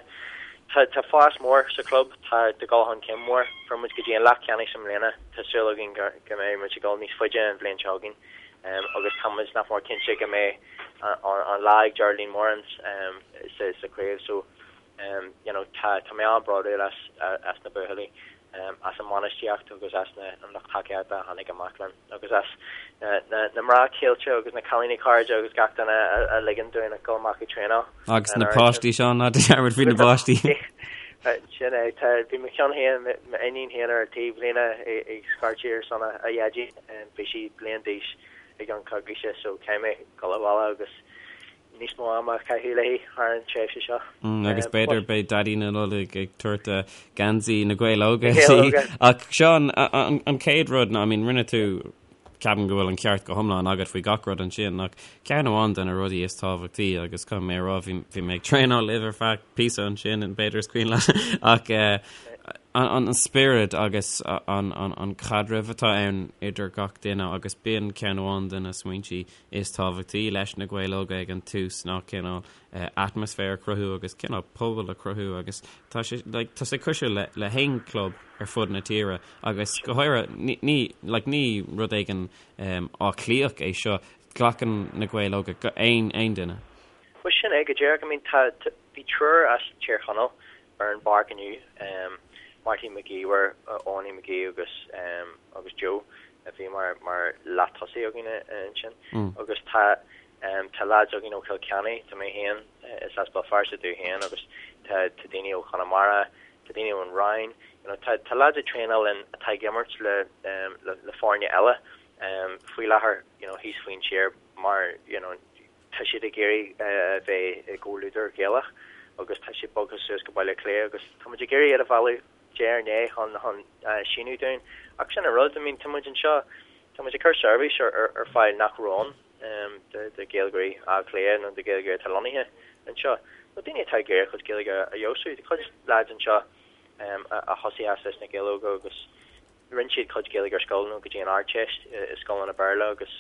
tá tá fás mór sa chlub, tá tá dul chun cinn mór. Fuair muid go dtí an leath ceannais i mbliana, tá súil againn go go mbeidh muid ag dul níos faide an bhliain seo chugainn. Agus tá muid nach mór cinnte go mbeidh an an lá ag Geraldine Morans sa sa chraobh. So you know tá tá mé an-bhródúil as as na buachaillí. as an mbainistíocht agus as na an lucht tacaíochta a tháinig amach linn agus as na na mná céile agus na cailíní cairde agus gach duine a ligeann dúinn a dhul amach ag traenáil. Agus na páistí Seán ná dearmad faoi na páistí. Sin é, tá bhí mo cheann féin m'iníon féin ar an taobhlíne ag scairtigh ar son a dhaidí, bhí sí bliain d'aois i gceann coicíse so caithfidh mé dul abhaile agus níos mó ama a chaitheamh léi thar an tréimhse seo. Agus b'fhéidir beidh Daidí na Nollag ag tabhairt geansaí na Gaeil Óga di. Ach Seán, an chéad rud ná, I mean, rinne tú, ceapaim go bhfuil an ceart go hiomlán agat faoi gach rud ansin, ach ceann amháin de na rudaí is tábhachtaí, agus caithfidh mé a rá, bhí mé ag traenáil libh ar feadh píosa ansin, b'fhéidir is cuimhin leat, ach. An spiorad agus an caidreamh atá ann idir gach duine agus b'in ceann amháin de na smaointí is tábhachtaí leis na Gaeil Óga ag an tús ná cineál atmaisféar a chruthú agus cineál pobal a chruthú agus tá sé like tá sé cosúil le le haon club ar fud na tíre agus go háirithe ní ní like ní rud éigin Áth Cliathach é seo glacann na Gaeil Óga aon aon duine. Bhuel sin é go díreach I mean tá bhí triúr as Tír Chonaill ar an bpáirc inniu, Marty McGee, Eoiní McGee agus agus Joe a bhí mar mar leath-tosaí againn ansin agus tá tá lads againn ó Chill Chainnigh, tá mé féin is as Béal Feirste domh féin agus tá tá daoine ó Chonamara, tá daoine ón Rinn, you know tá tá lads ag traenáil linn atá ag imirt le le le foirne eile faoi láthair you know thíos faoin tír mar you know Tá siad ag iarraidh a bheith i gcomhluadar Gaelach agus tá siad bogtha suas go Baile Átha Cliath agus tá muid ag iarraidh iad a mhealladh diaidh ar ndiaidh chun chun síniú dúinn. Ach sin an rud, I mean tá muid anseo, tá muid ag cur seirbhís ar ar fáil nach raibh ann do do Ghaeilgeoirí Átha Cliath nó do Ghaeilgeoirí atá lonnaithe anseo nó daoine atá ag iarraidh a gcuid Gaeilge a fheabhsú. Tá cuid lads anseo a thosaigh as leis na Gaeil Óga agus Rinne siad cuid Gaeilge ar scoil nó go dtí an Ardteist i scoileanna Béarla agus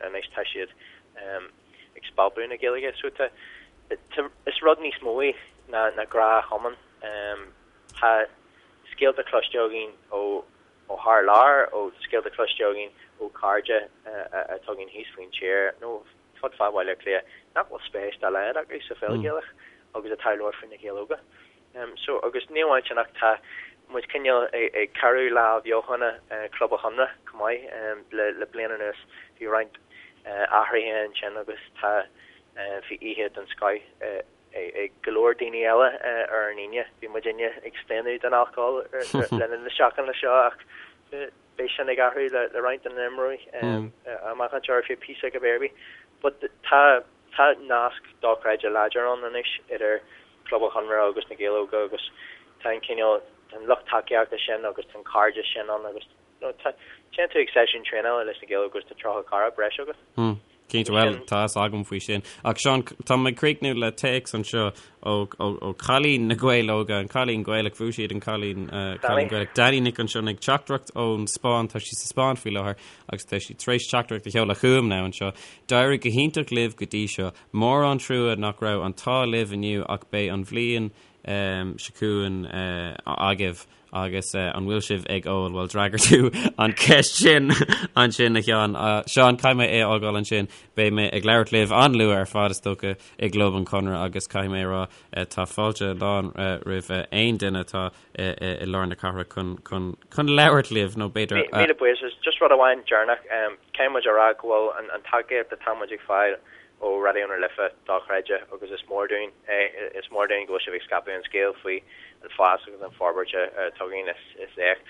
anois tá siad ag spalpadh na Gaeilge. So tá, is rud níos mó é ná ná gnáthchumann. Tá scéalta cloiste againn ó ó thar lear, ó scéalta cloiste againn ó chairde atá againn thíos faoin tír nó fud fad Bhaile Átha Cliath nach bhfuil spéis dá laghad acu sa pheil Ghaelach agus atá ag labhairt faoi na Gaeil Óga. So, agus ní amháin sin ach tá muid cineál ag cabhrú le athbheochana Club an Chonradh chomh maith le le bliain anuas. Bhí roinnt athruithe ansin agus tá bhí oíche den scoth ag go leor daoine eile ar an Aoine. Bhí muidinne ag staonadh den alcól le linn na seachtaine seo ach beidh sin ag athrú le le roinnt de na himreoirí amach anseo ar feadh píosa go b'fhéidir. But tá tá nasc dochreidte láidir ann anois idir Club an Chonradh agus na Gaeil Óga agus tá an cineál, tá an lucht tacaíochta sin agus tá an cairdeas sin ann agus you know tá, téann tú ag seisiún traenála leis na Gaeil Óga agus tá 30 cara breise agat. Hmm. Cinnte, bhuel, tá fhios agam faoi sin. Ach Seán, tá mé ag críochnú le téacs anseo ó, ó, ó cailín na Gaeil Óga, an cailín Gaelach, bhuaigh siad an cailín, uh, cailín Gaelach. Danny Nic an Sionnaigh, teachtaireacht ón Spáinn, tá sí sa Spáinn faoi láthair agus tá sí tar éis teachtaireacht a sheoladh chugam now anseo. D'éirigh go hiontach libh go dtí seo. Mór an trua nach raibh an t-ádh libh inniu ach beidh an bhliain seo chugainn agaibh agus an bhfuil sibh ag ól? Bhuel d'fhreagair tú an cheist sin ansin a Sheáin. Seán, caithfidh mé é a fhágáil ansin. Beidh mé ag labhairt libh an-luath ar fad is dócha i gClub an Chonradh agus caithfidh mé a rá tá fáilte lán roimh aon duine atá i lár na cathrach chun labhairt libh nó b'fhéidir. Míle buíochas. Just rud amháin deireanach, caithfidh muid a rá go bhfuil an tacaíocht atá muid ag fáil ó Raidió na Life dochreidte agus is mór dúinn é. Is mór dúinn go bhfuil sibh ag scaipeadh an scéil faoi an fás agus an forbairt atá againn. Is éacht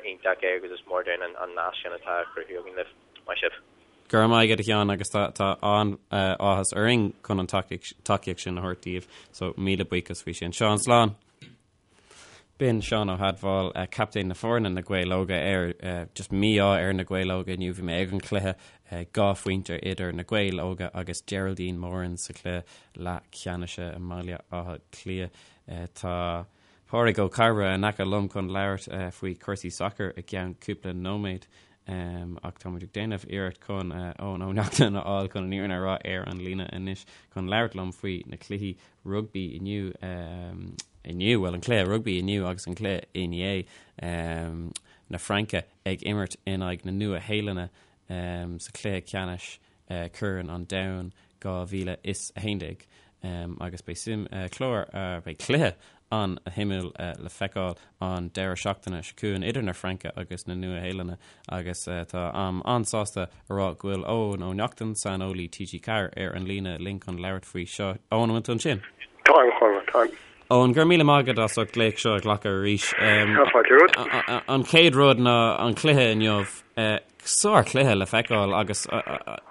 iontach é agus is mór dúinn an nasc sin atá á chruthú againn libh. Maith sibh. Go raibh maith agat a Sheáin agus tá an-áthas orainn chun an tacaíocht sin a thabhairt daoibh so míle buíochas faoi sin. Seán, slán! B'in Seán Ó hAdmhail, captaen na foirne na Gaeil Óga ar just mí-ádh ar na Gaeil Óga inniu. Bhí mé ag an chluiche, 2 phointe idir na Gaeil Óga agus Geraldine Moran sa chluiche leathcheannais i mBaile Átha Cliath. Tá Pádraig Ó Cairbre in aice liom chun labhairt faoi chúrsaí sacair i gceann cúpla nóiméad. Ach tá muid ag déanamh iarracht chun Eoin Ó Neachtain a fháil chun an fhírinne a rá ar an líne anois chun labhairt liom faoi na cluichí rugbaí inniu, inniu, bhuel an cluiche rugbaí inniu agus an cluiche inné, na Fraince ag imirt in aghaidh na Nua-Shéalainne sa chluiche ceannais Corn an Domhain 2011 agus beidh suim, clár, beidh cluiche an-shuimiúil le feiceáil an deireadh seachtaine seo chugainn idir na Fraince agus na Nua-Shéalainne agus táim an-sásta a rá go bhfuil Eoin Ó Neachtain, saineolaí TG4 ar an líne linn chun labhairt faoi seo. Eoin, an bhfuil tú ansin? Táim, a Chonradh, táim. Eoin, go raibh míle maith agat as ucht glaoch seo a ghlacadh arís. Tá fáilte romhat. An chéad rud ná an cluiche inniu. Sár-chluiche le feiceáil agus ó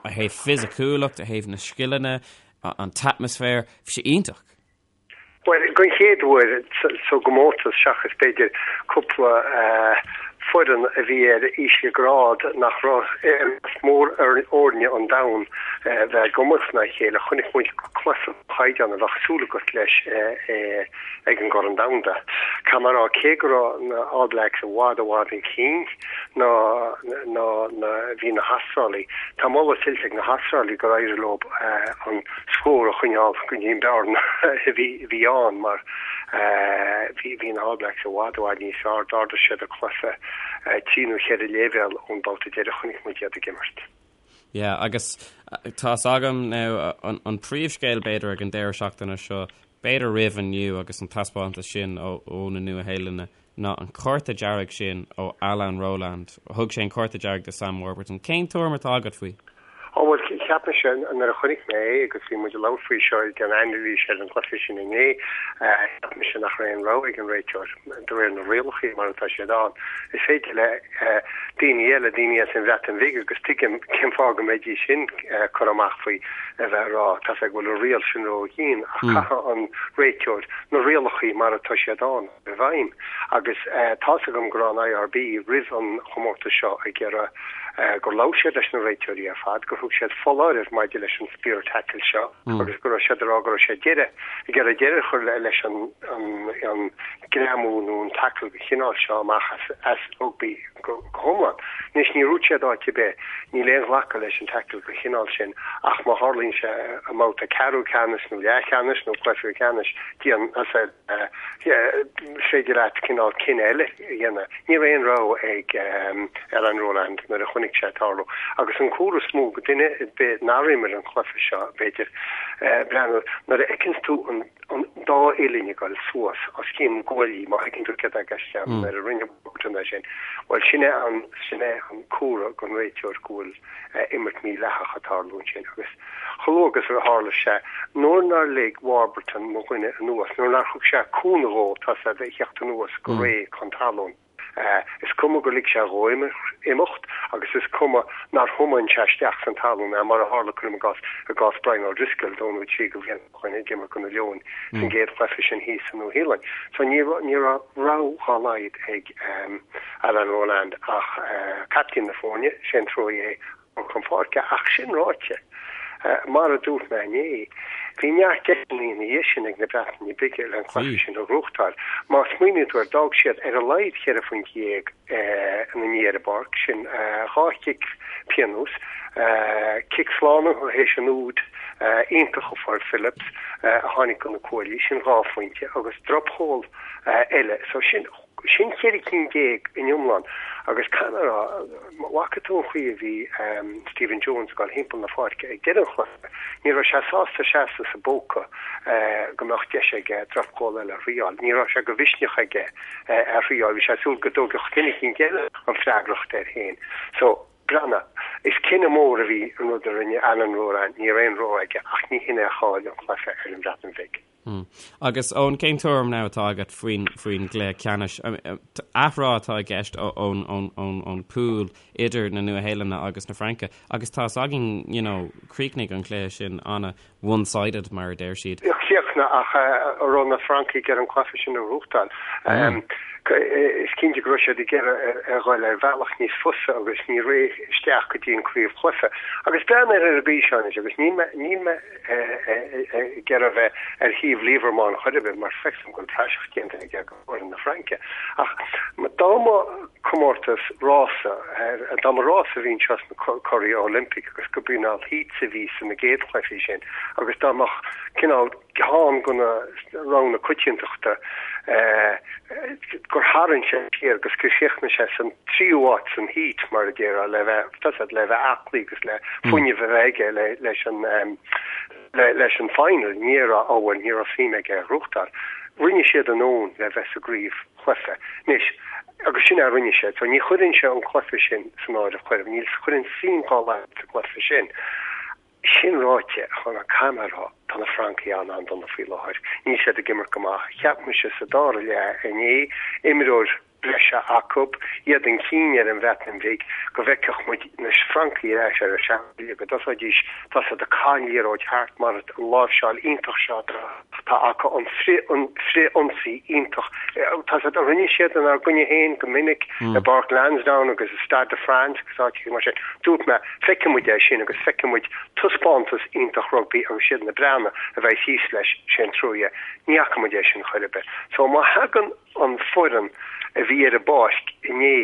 thaobh fisiciúlacht, ó thaobh na scileanna, an t-atmaisféar, bhí sé iontach. Bhuel, den chéad uair sa gcomórtas, seachas b'fhéidir cúpla. foireann a bhí ar ísle grád nach raibh i measc mórfhoirne an domhain bheith ag imirt in aghaidh a chéile. Chonaic muid cluiche den chaighdeán a bheadh súil agat leis ag an gCorn Domhanda. Caithfidh mé a rá, cé go raibh na All Blacks i bhfad i bhfad chun cinn ná ná ná bhí na hAstrálaigh, tá moladh tuillte ag na hAstrálaigh gur éirigh leo an scór a choinneáil go dtí an bearna a bhí ann mar bhí na All Blacks i bhfad i bhfad níos fearr. D'ardaigh siad a gcluiche trí nó cheithre léibhéal ón babhta deiridh a chonaic muid iad ag imirt. Yeah, agus tá's agam now an príomhscéal b'fhéidir ag an deireadh seachtaine seo, b'fhéidir roimh inniu agus an taispeántas sin ó na Nua-Shéalainne ná an cárta dearg sin ó Alain Rolland. Thug sé an cárta dearg do Sam Warburton. Cén tuairim atá agat faoi? Ó bhuel, cheap mise nuair a chonaic mé é agus bhí muid ag labhairt faoi seo ag an anailís ar an gcluiche sin inné, cheap mise nach raibh aon rogha ag an réiteoir de réir na rialacha mar atá siad ann. Is féidir le daoine eile, daoine as an Bhreatain Bhig agus tuigim cén fáth go mbeidís sin curtha amach faoi a bheith ag rá tá's a'd go bhfuil an riail sin ró-dhian ach caithfidh an réiteoir na rialacha mar atá siad ann i bhfeidhm agus tá's agam go raibh an IRB roimh an chomórtas seo ag iarraidh gur labhair siad leis na réiteoirí ar fad, gur thug siad foláireamh maidir leis an spear tackle seo agus go raibh siad ag rá go raibh siad deireadh ag iarraidh deireadh a chur leis an an greamú nó an tackle den chineál seo amach as rugbaí go hiomlán. Anois níor dhúirt siad áit ar bith, níl aon ghlacadh leis an tackle den chineál sin ach má tharlaíonn sé i mbabhta ceathrú ceannais nó leathcheannais nó cluiche ceannais, déan is féidir leat cineál cinneadh eile a dhéanamh. Ní raibh aon rogha ag Alain Rolland nuair a chonaic sé ag tarlú. Agus an comhartha is mó do dhuine ar bith nár imir an cluiche seo, b'fhéidir, breathnú, nuair a fheiceanns tú an dá uillinn ag dul suas os cionn guaillí, má thuigeann tú céard atá i gceist agam, nuair a rinne Warburton é sin, bhuel, sin é an, sin é an comhartha don réiteoir go bhfuil imirt mhídhleathach ag tarlú ansin. Agus chomh luath agus a tharla sé, nuair nár lig Warburton mo dhuine anuas, nuair nár thug sé cúnamh dhó, tá's a'd, a theacht anuas go réidh chun talún, is cuma gur lig sé dhó imeacht agus is cuma nár thiomáin sé isteach san talún é, mar a tharla, cuirim i gcás, i gcás Brian O'Driscoll dó nó trí de bhlianta ó shin ag imirt do na Leoin san gcéad chluiche sin thíos sa Nua-Shéalainn. So ní raibh, ní raibh rogha dá laghad ag Alain Rolland ach captaen na foirne, Shane Troyer, a chur chun páirce. Ach sin ráite, mar a dúirt mé inné, bhí neart deiseanna ina dhiaidh sin ag na Breataine Bige le an cluiche sin a ghnóthachtáil. Má smaoiníonn tú air, d'fhág siad ar a laghad cheithre phointe dhéag ina ndiaidh ar an bpáirc, sin dhá chic pionóis, cic slánaithe théis an úid iontach a fuair Phillips a tháinig go na cuaillí, sin dhá phointe, agus dropchúl eile. So sin sin cheithre cinn déag in iomlán agus caithfidh mé a rá, má bhfaca tú an chaoi a bhí Stephen Jones ag dul thimpeall na pháirce ag deireadh an chluiche, ní raibh sé sásta seasamh sa bpóca go mbeadh deis aige dropchúl eile a thriáil. Ní raibh sé de mhisneach aige é a thriáil, bhí sé ag súil go dtógfadh duine eicínt eile an freagracht air féin. So, breathnaigh, is cinneadh mór a bhí an rud a rinne Alain Rolland, ní raibh aon rogha aige ach ní hin é a chaill an cluiche ar an Bhreatain Bhig. Agus Eoin, cén tuairim now atá agat faoin faoin gcluiche ceannais? Athrá atá i gceist ón ón ón ón pool idir na Nua-Shéalainne agus na Fraince agus tá's againn, you know, chríochnaigh an cluiche sin ana one-sided mar a deir siad. Chríochnaigh ach an raibh na Francaigh ar an cluiche sin a ghnóthachtáil. Is cinnte go raibh siad ag iarraidh a dhul ar bhealach níos fusa agus ní réidh isteach go dtí an craobhchluiche. Agus breathnaigh ar an gcaoi seo anois agus níl mé níl mé ag iarraidh a bheith ar thaobh Lièvremont chor ar bith mar feicim go bhfuil praiseach déanta aige go fhoireann na Fraince. Ach dá mba comórtas rása, dá mba rás a bhí anseo sna Curaí Olympic agus go b'cineál heats a bhí sna gcéad chluichí sin agus dá mbeadh cineál ceann de na roghanna coitiantachta gur tharraing sé siar agus gur chríochnaigh sé san tríú áit san heat mar a déarfá le bheith tá's a'd le bheith aclaí agus le fuinneamh a bheith aige leis an leis an final ní raibh ó bhuel ní raibh suim aige a ghnóthachtáil. Rinne siad a ndóthain le bheith sa gcraobhchluiche. Anois, agus sin é a rinne siad. So ní chuireann sé an cluiche sin san áireamh chor ar bith. Níl chuireann suim dá laghad sa gcluiche sin. Sin ráite, a Chonor, caithfidh mé a rá, tá na Francaigh an-an-dona faoi láthair. Níl siad ag imirt go maith. Cheap mise sa dara leath inné, imreoir. breise acu, iad chun cinn ar an Bhreatain Bhig, go bhfeicfeadh muid na Francaigh ar ais ar a seanchaoi, go dtosóidís, tá siad ag caitheamh an liathróid thart mar an láimhseáil iontach seo atá acu, an frith-ionsaí iontach, tá siad, a rinne siad inár gcoinne féin go minic i bPáirc Lansdowne agus i Stade de France agus áiteacha mar sin. Dúirt mé, feicfidh muid é sin agus feicfidh muid taispeántas iontach rugbaí agus siad na Breatnaigh a bheidh thíos leis, sé an trua é. Ní fhaca muid é sin chor ar bith. So má thagann an foireann a bhí ar an bpáirc inné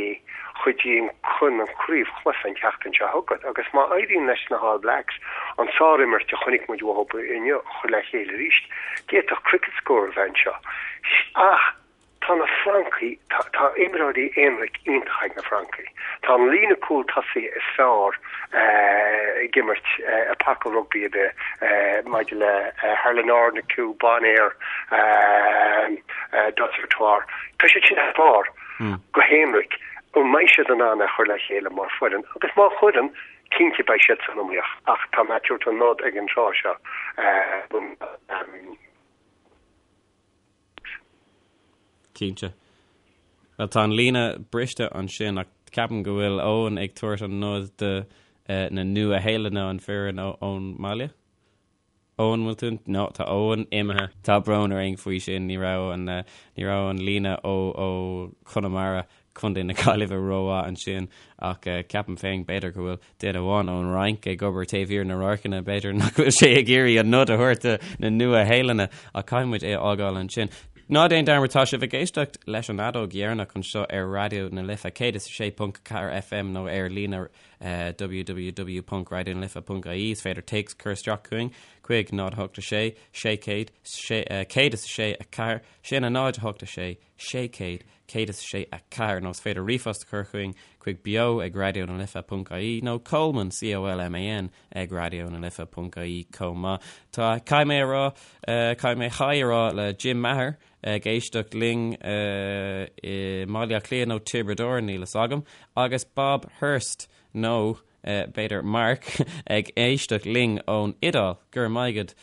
chuig an chun an craobhchluiche an tseachtain seo chugainn agus má éiríonn leis na hAll Blacks an sárimirt a chonaic muid uathu inniu a chur le chéile arís, d'fhéadfadh cricket score a bheith anseo. Ach tá na Francaigh, tá, tá imreoirí aonraic iontach ag na Francaigh. Tá an líne cúl tosaigh is fearr ag imirt i paca rugbaí ar bith maidir le Harlin Arnacu, Bonnaire, Dusautoir. Tá siad sin thar barr go haonraic. An mbeidh siad in ann é a chur le chéile mar foireann? Agus má chuireann, cinnte beidh siad san iomaíocht. Ach tá mé ag tabhairt an nod ag an tráth seo. Cinnte. Bhuel, tá an líne briste ansin ach ceapaim go bhfuil Eoin ag tabhairt an nod do na Nua-Shéalainne an foireann ón mbaile. Eoin, bhfuil tú? No, tá Eoin imithe. Tá brón orainn faoi sin, ní raibh an, ní raibh an líne ó, ó Chonamara, Contae na Gaillimhe rómhaith ansin ach ceapaim féin b'fhéidir go bhfuil duine amháin ón Fhrainc ag obair taobh thiar na radharcanna, b'fhéidir nach bhfuil sé ag iarraidh an nod a thabhairt do na Nua-Shéalainne ach caithfidh muid é a fhágáil ansin. Ná déan dearmad, tá sibh ag éisteacht leis an Fheadóg Dheireanach anseo ar Raidió na Life 106.4 FM nó ar líne www.raidionalife.ie Is féidir téacs a chur isteach chugainn chuig 0 8 6 600 106 4 sin a 0 8 6 600 106 4 nó is féidir ríomhphost a chur chugainn chuig beo ag raidionalife.ie nó Colman C-O-L-M-A-N ag raidionalife.ie chomh maith. Tá caithfidh mé a rá caithfidh mé haigh a rá le Jim Maher ag éisteacht linn i mBaile Átha Cliath nó Tiobraid Árann, níl fhios agam, agus Bob Hurst nó b'fhéidir Mark ag éisteacht linn ón Iodáil. Go raibh maith agat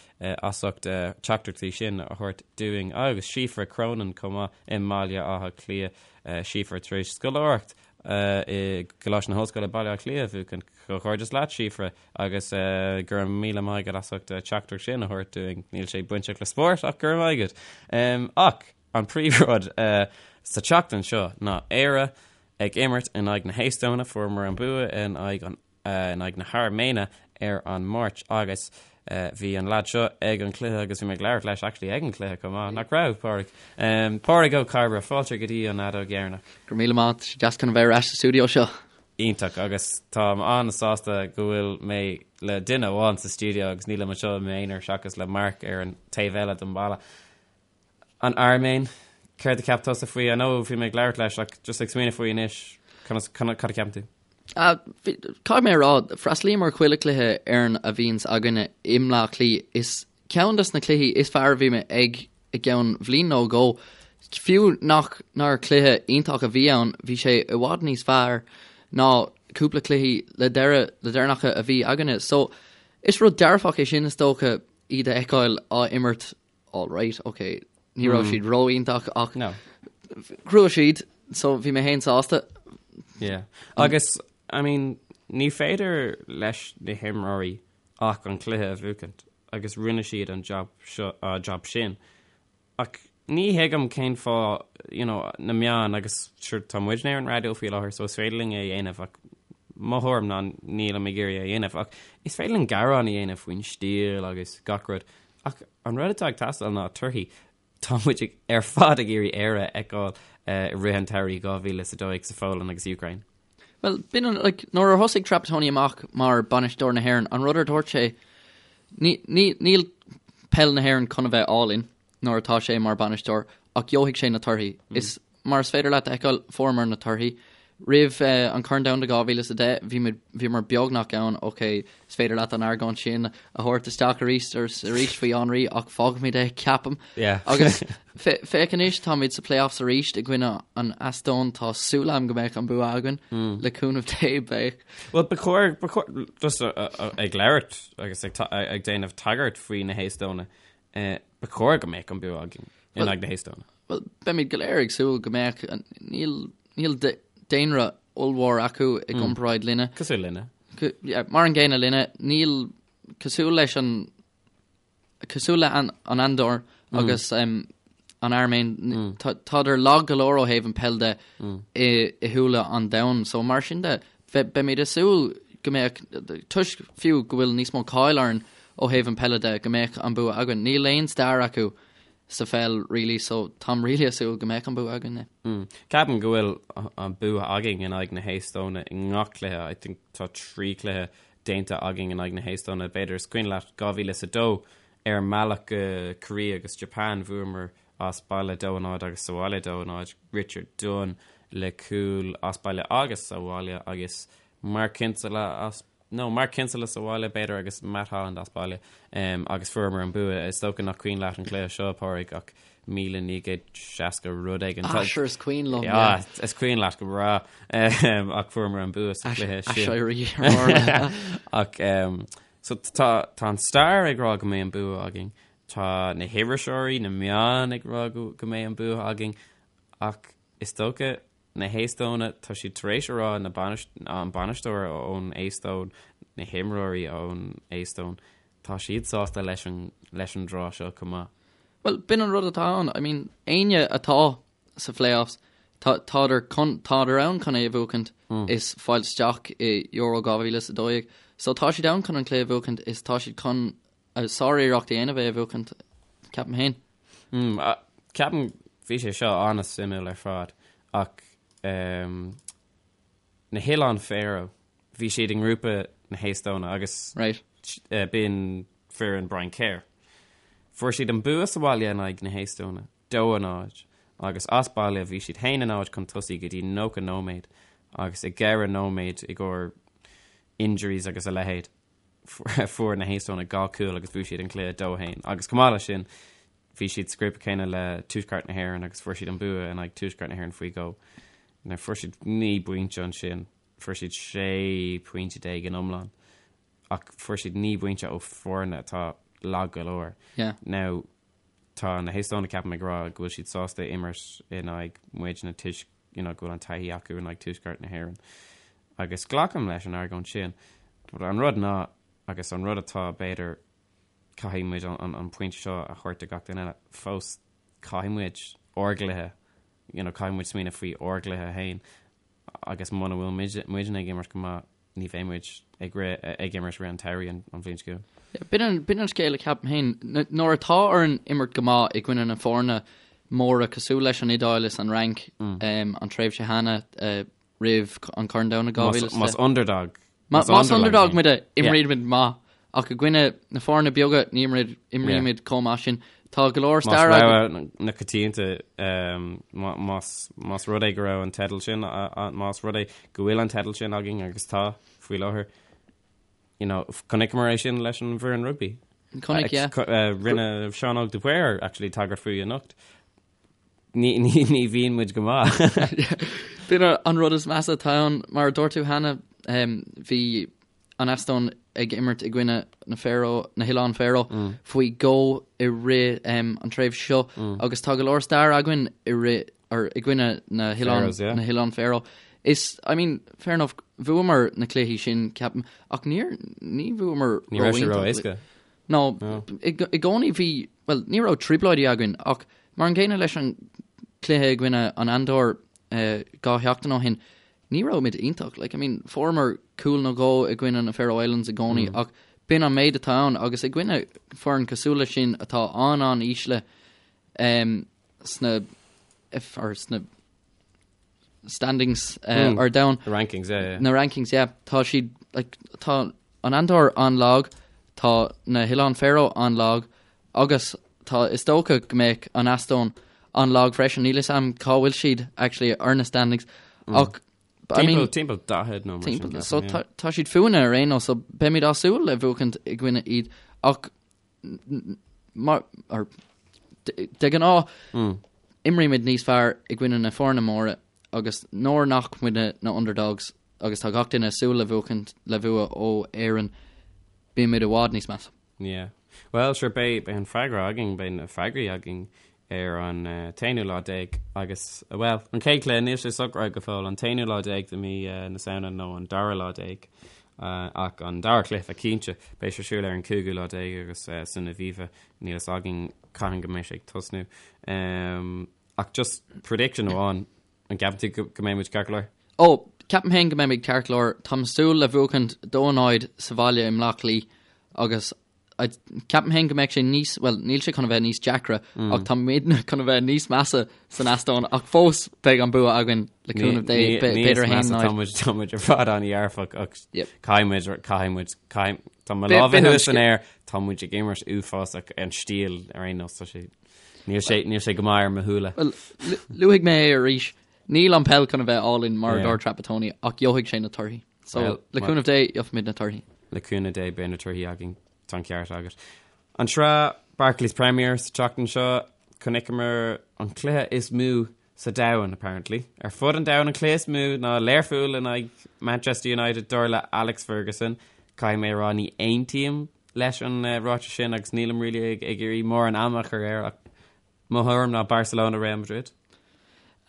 as ucht teachtaireachtaí sin a thabhairt dúinn. Agus Síofra Cronin chomh maith i mBaile Átha Cliath. Síofra tar éis scoláireacht i gColáiste na hOllscoile Baile Átha Cliath a bhuachan. Comhghairdeas leat, Síofra, agus go raibh míle maith agat as ucht teachtaireacht sin a thabhairt dúinn. Níl sé bainteach le spórt ach go raibh maith agat. Ach an príomhrud sa tseachtain seo ná Éire ag imirt in aghaidh na hEastóine, fuaireamar an bua in aghaidh an in aghaidh na hAirméine ar an Máirt agus bhí an leaid seo ag an cluiche agus bhí mé ag labhairt leis actually ag an cluiche chomh maith, nach raibh, Pádraig? Pádraig Ó Cairbre, fáilte go dtí an fheadóg dheireanach. Go raibh míle maith, tá sé deas chun a bheith ar ais sa stiúideo seo. Iontach, agus táim an-sásta go bhfuil mé le duine amháin sa stiúideo agus nílim anseo i m'aonar seachas le Mark ar an taobh eile den bhalla. An Airméin, céard a cheap tusa faoi? I know bhí mé ag labhairt leis ach just ag smaoineamh faoi anois, conas, cad a cheapann tú? Caithfidh mé a rá, freastalaím ar chuile cluiche Éireann a bhíonns againne i mBleá Cliath. Is ceann des na cluichí is fearr a bhí mé ag i gceann bhliain nó dhó. Fiú nach nár cluiche iontach a bhí ann, bhí sé i bhfad níos fearr ná cúpla cluichí le deireadh, le deireanacha a bhí againne. So, is rud dearfach é sin is dócha, iad a fheiceáil á imirt all right, ok, ní raibh siad ró-iontach ach No. ghnóthaigh siad, so bhí mé féin sásta. Yeah. Agus, I mean, ní féidir leis na himreoirí ach an cluiche a bhuachaint agus rinne siad an job seo, uh, job sin. Ach ní thuigim cén fáth, you know, na meáin agus sure tá muidne ar an raidió faoi láthair so is féidir linn é a dhéanamh ach mo thuairim ná nílim ag iarraidh é a dhéanamh ach is féidir linn gearán a dhéanamh faoin stíl agus gach rud Ach an rud atá ag teastáil ná torthaí. Tá muid ar fad ag iarraidh Éire a fheiceáil i rith an tsamhraidh 2012 sa Pholainn agus Úcráin. Bhuel, b'in an, like, nuair a thosaigh Trapattoni amach mar bainisteoir na hÉireann, an rud ar dúirt sé, ní, ní, níl peil na hÉireann chun a bheith álainn nuair atá sé mar bainisteoir, ach gheobhaidh sé na torthaí. Is mar is féidir leat a fheiceáil, fuaireamar na torthaí. Roimh an Corn Domhanda 2010, bhí muid, bhíomar beagnach ann, ok, is féidir leat an argóint sin a thabhairt isteach arís agus arís faoi Henry ach fágfaimid é, ceapaim. Yeah. Agus féach anois, táimid sa playoffs arís i gcoinne an Eastóin, tá súil agam go mbeidh an bua againn, le cúnamh Dé, beidh. Bhuel, ba chóir, ba chóir, just ag labhairt agus ag ag déanamh tagairt faoi na hEastóine, ba chóir go mbeadh an bua againn in aghaidh na hEastóine. Well, beimid go léir ag súil go mbeadh, níl, níl daonra ollmhór acu i gcomparáid linne. Cosúil linne. Yeah, mar an gcéanna linne, níl, cosúil leis an, cosúil le an, an Andór agus um, an Airméin, mm. tádar lag go leor ó thaobh an peil de mm. i, i shúile an domhain, so mar sin de, beimid ag súil go mbeadh, toisc fiú go bhfuil níos mó cáil orainn ó thaobh an peile de, go mbeadh an bua againn. Níl aon stair acu sa pheil really so táim really ag súil go mbeadh an bua againn. Mm. Ceapaim go bhfuil an bua againn in aghaidh na hEastóine i ngach cluiche. I think tá 3 cluiche déanta againn in aghaidh na hEastóine. B'fhéidir is cuimhin leat 2002 ar an mbealach go Korea agus Japan bhuamar as baile 2-0 agus sa bhaile 2-0 Richard Dunne le cúl as baile agus sa bhaile agus Mark Kinsella as nó Mark Kinsella sa bhaile b'fhéidir agus Matt Holland as baile um, agus fuaireamar an bua. Is dócha nach cuimhin leat an cluiche seo, Pádraig, ach 1960 rud éigin. Ah, sure is cuimhin liom. Yeah, is cuimhin leat go breá um, ach fuaireamar an bua sa chluiche sin. Aiséirí Ach um, so tá, tá an stair ag rá go mbeidh an bua againn. Tá na hiriseoirí, na meáin ag rá go, go mbeidh an bua againn ach is dócha Na hEastóine, tá siad tar éis a rá, na an bainisteoir ón Eastóin, na himreoirí ón Eastóin, tá siad sásta leis an leis an draw seo chomh maith. Bhuel, b'in an rud atá ann. I mean, éinne atá sa phlayoffs, tá tádar chun tádar ann chun é a bhuachaint is fáil isteach i Euro 2012. So tá siad ann chun an cluiche a bhuachaint is tá siad chun sár-iarracht a dhéanamh é a bhuachaint, ceapaim féin. Mm, ceapaim bhí sé seo an-suimiúil ar fad ach um, na hOileáin Faroe, bhí siad i ngrúpa na hEastóine agus right. uh, b'in foireann Brian Kerr. Fuair siad an bua sa bhaile in aghaidh na hEastóine, 2-0, agus as baile bhí siad 1-0 chun tosaigh go dtí 90 nóiméad agus i gceithre nóiméad i gcomhair injuries agus a leithéid. Fuair na hEastónaigh 2 cúl agus bhuaigh siad an cluiche 2-1. Agus chomh maith leis sin, bhí siad sa ghrúpa céanna le Tuaisceart na hÉireann agus fuair siad an bua in aghaidh Tuaisceart na hÉireann faoi dhó. Now fuair siad 9 bpointe ansin, fuair siad 16 pointe in iomlán ach fuair siad 9 bpointe ó foirne atá lag go leor. Yeah. Now tá na hEastónaigh ceapaim ag rá go bhfuil siad sásta imirt in aghaidh muidne toisc you know, go bhfuil an taithí acu in aghaidh Tuaisceart na hÉireann. Agus glacaim leis an argóint sin. But an rud ná, agus an rud atá b'fhéidir caithfidh muid an, an, an pointe seo a thabhairt do gach duine eile, fós caithfidh muid ár gcluiche, you know, caithfidh muid smaoineamh faoi ár gcluiche féin agus muna bhfuil muid, muidne ag imirt go maith, ní bheidh muid ag rith, ag imirt rith an tsamhraidh an, an bhliain seo chugainn. B'in an, b'in an scéal a ceapaim féin. Nuair atá orainn imirt go maith i gcoinne na foirne móra cosúil leis an Iodáil is an Fhrainc um, an tréimhse cheana uh, roimh an Corn Domhanda 2010. Más underdog. Más underdog muid imrímid maith ach i gcoinne na foirne beaga ní imrímid chomh maith sin. Tá go leor stair Más na coitianta más rud é go raibh an teideal sin más rud é go bhfuil an teideal sin againn agus tá faoi láthair. You know, chonaiceamar é sin leis an bhfoireann rugby. Chonaic, yeah. Rinne Seán Óg de Paor actually tagairt faoi anocht. Ní, ní, ní bhíonn muid go maith. B'in an rud is measa atá ann, mar a dúirt tú cheana, bhí an Eastóin ag imirt i gcoinne na Faroe, na hOileáin Faroe faoi dhó i rith an tréimhse seo agus tá go leor stair againn i rith, or i gcoinne na hOileáin, Faroes, yeah. na hOileáin Faroe. Is, I mean, fair enough, bhuamar na cluichí sin, ceapaim, ach níor, ní bhuamar Ní raibh sé ró-éasca. No, i gcónaí bhí, bhuel, ní raibh trioblóidí againn ach mar an gcéanna leis an cluiche i gcoinne an Andór 2 sheachtain ó shin, ní raibh muid iontach. Like, I mean, fuaireamar cúl nó dhó i gcoinne na Faroe Islands i gcónaí ach b'in an méid atá ann agus i gcoinne foireann cosúil leis sin atá an-an-ísle sna, or sna standings ar domhan. The rankings, yeah, yeah. Na rankings, yeah. Tá siad, like, tá an Andór an-lag, tá na hOileáin Faroe an-lag, agus tá, is dócha go mbeadh an Eastóin an-lag freisin. Níl fhios a'm cá bhfuil siad, actually, ar na standings. Ach, I mean, Timpeall 40 nó mar sin. Timpeall, so tá, tá siad fúinne ar aon nós, so beimid á súil le buachaint i gcoinne iad, ach mar, or, de ghnáth, imrímid níos fearr i gcoinne na foirne móra agus nuair nach muidne na underdogs agus tá gach duine ag súil le buachaint le bua ó Éirinn, bímid i bhfad níos measa. Yeah. Well, sure, beidh, beidh an freagra againn, beidh na freagraí againn ar an t-aonú lá déag agus, bhuel, an chéad chluiche, níl sé socraithe go fóill, an t-aonú lá déag de mí na Samhna nó an dara lá déag, ach an dara cluiche cinnte, beidh sé ar siúl ar an cúigiú lá déag agus san Aviva, níl fhios againn cathain go mbeidh sé ag tosnú. Ach just prediction amháin, an gceapann tú go mbeidh muid ceart go leor? Ó, ceapaim féin go mbeimid ceart go leor. Táim ag súil le buachaint 2-0 sa bhaile i mBleá Cliath agus Ceapaim féin go mbeidh sé níos, bhuel, níl sé chun a bheith níos deacra ach tá muidne chun a bheith níos measa san Eastóin ach fós beidh an bua againn le cúnamh Dé, b'fhéidir 1-0. Tá muid tá muid ar fad an-dhearfach ach caithfidh muid caithfidh muid caithfidh tá mo lámha thuas san aer tá muid ag imirt uafásach an stíl ar aon nós tá sé níl sé níl sé go maith ar mo shúile. Bhuel, luafaidh mé é arís, níl an peil chun a bheith álainn mar a dúirt Trapattoni ach gheobhaidh sé na torthaí. So, le cúnamh Dé, gheobhaimid na torthaí. Le cúnamh Dé, beidh na torthaí againn. Tá an ceart agat. An tsraith Barclays Premier sa tseachtain seo, chonaiceamar an cluiche is mó sa domhan, apparently. Ar fud an domhain, an cluiche is mó ná Learpholl in aghaidh Manchester United, dar le Alex Ferguson. Caithfidh mé a rá, ní aontaím leis an ráiteas sin agus nílim really ag iarraidh mórán ama a chur air ach Mo thuairim ná Barcelona Real Madrid.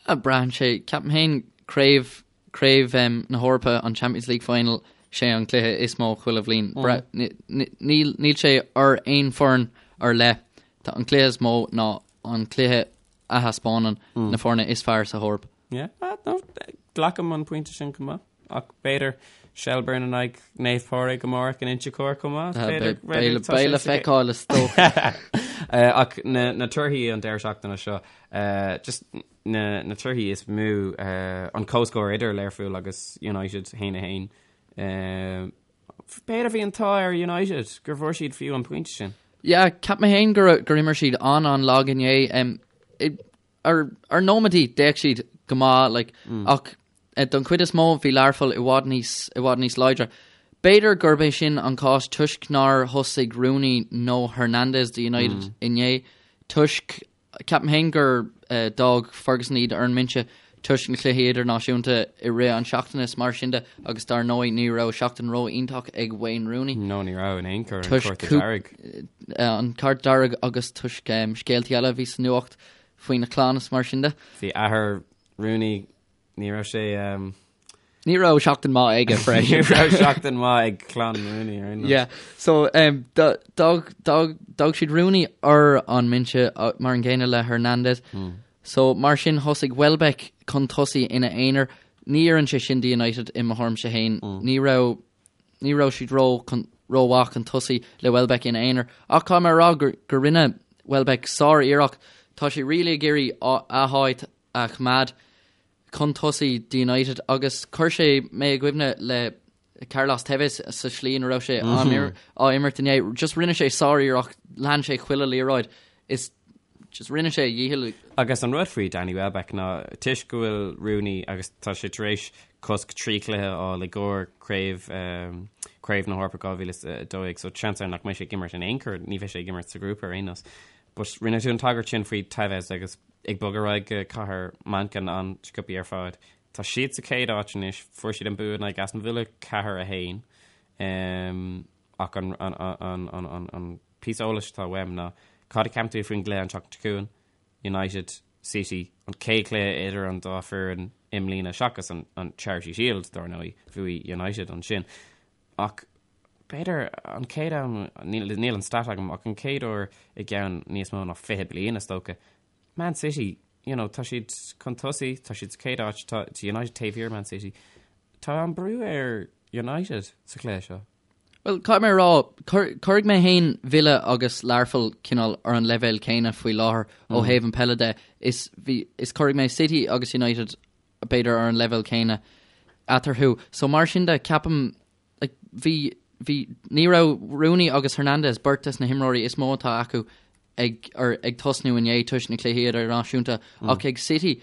Braitheann sé, ceapaim féin, craobh, craobh na hEorpa, an Champions League final, sé an cluiche is mó chuile bhliain. Níl, níl sé ar aon foireann ar leith. Tá an cluiche is mó ná an cluiche a thaispeánann na foirne is fearr sa hEoraip. Yeah, no, glacaim an pointe sin chomh maith. Ach b'fhéidir Shelbourne in aghaidh Naomh Pádraig amárach in Inse Chór chomh maith. Beidh le feiceáil is dócha. Ach na torthaí an deireadh seachtaine seo, just na torthaí is mó, an comhscór idir Learpholl agus United 1-1. B'fhéidir bhí an t-ádh ar United gur bhfuair siad fiú an pointe sin. Yeah, cheap mé féin gur imir siad an-an-lag inné. Ar ar nóiméadaí d'fhéach siad go maith like, ach don chuid is mó bhí Learpholl i bhfad níos i bhfad níos láidre. B'fhéidir gurb é sin an cás toisc nár thosaigh Rooney nó Hernandez do United inné toisc ceapaim féin gur d'fhág Ferguson iad ar an mbinse toisc na cluichí idirnáisiúnta i rith an seachtaine is mar sin de agus dar ndóigh ní raibh seachtain ró-iontach ag Wayne Rooney. No ní raibh in aon chor, an cárta dearg. An cárta dearg agus toisc scéaltaí eile a bhí sa nuacht faoina chlann is mar sin de. Bhí athair Rooney, ní raibh sé. Ní raibh seachtain maith aige freisin. Ní raibh seachtain maith ag clann Rooney ar aon nós. Yeah, so d'fhág siad Rooney ar an mbinse mar an gcéanna le Hernandez. So, mar sin, thosaigh Welbeck chun tosaigh ina aonar. Ní oireann sé sin do United i mo thuairimse féin. Ní raibh, ní raibh siad ró, rómhaith chun tosaigh le Welbeck ina aonar. Ach caithfidh mé a rá gur, gur rinne Welbeck sár-iarracht. Tá sé really ag iarraidh a háit a choimeád chun tosaigh do United agus chuir sé mé i gcuimhne le Carlos Tevez sa slí ina raibh sé á imirt inné. Just rinne sé sár-iarracht, lean sé chuile liathróid is just rinne sé a dhícheall. Agus an rud faoi Danny Welbeck ná toisc go bhfuil Rooney agus tá sé tar éis cosc 3 chluiche a fháil i gcomhair craobh Craobh na hEorpa 2012 so seans ann nach mbeidh sé ag imirt in aon chor, ní bheidh sé ag imirt sa ghrúpa ar aon nós. But rinne tú an tagairt sin faoi Tevez agus ag bogadh ar aghaidh go cathair Manchain an-sciobtha ar fad. Tá siad sa chéad áit anois, fuair siad an bua in aghaidh Aston Villa 4, 1. Ach an an píosa eolais atá uaim ná cad a cheapann tú faoin gcluiche an tseachtain seo chugainn, United, City, an chéad chluiche idir an dá foireann i mbliana seachas an an Charity Shield dar ndóigh, bhuaigh United ansin. Ach b'fhéidir an chéad am, níl níl an stat agam, ach an chéad uair i gceann níos mó ná 20 bliain is dócha, Man City, you know, tá siad chun tosaigh, tá siad sa chéad áit, tá United taobh thiar Man City. Tá an brú ar United sa chluiche seo. Bhuel, caithfidh mé a rá, cuirfidh mé féin Villa agus Learpholl cineál ar an leibhéal céanna faoi láthair ó thaobh an peile de. Is bhí, is cuirfidh mé City agus United b'fhéidir ar an leibhéal céanna eatarthu. So mar sin de, ceapaim Like, bhí, bhí, ní raibh Rooney agus Hernandez, beirt des na himreoirí is mó atá acu ag, ar, ag tosnú inné toisc na cluichí idirnáisiúnta, ach ag City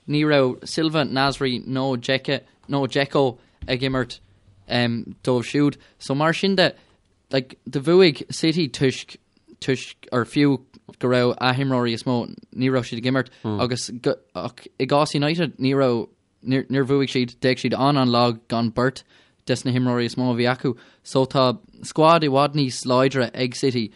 ní raibh Silva, Nasri nó Dzeko, nó Dzeko ag imirt um, dóibh siúd. So mar sin de, like, do bhuaigh City toisc, toisc, or fiú go raibh a himreoirí is mó, ní raibh siad ag imirt, agus go, ach i gcás United ní raibh Níor bhuaigh siad, d'fhéach siad an-an-lag gan beirt des na himreoirí is mó a bhí acu. So tá squad i bhfad níos láidre ag City,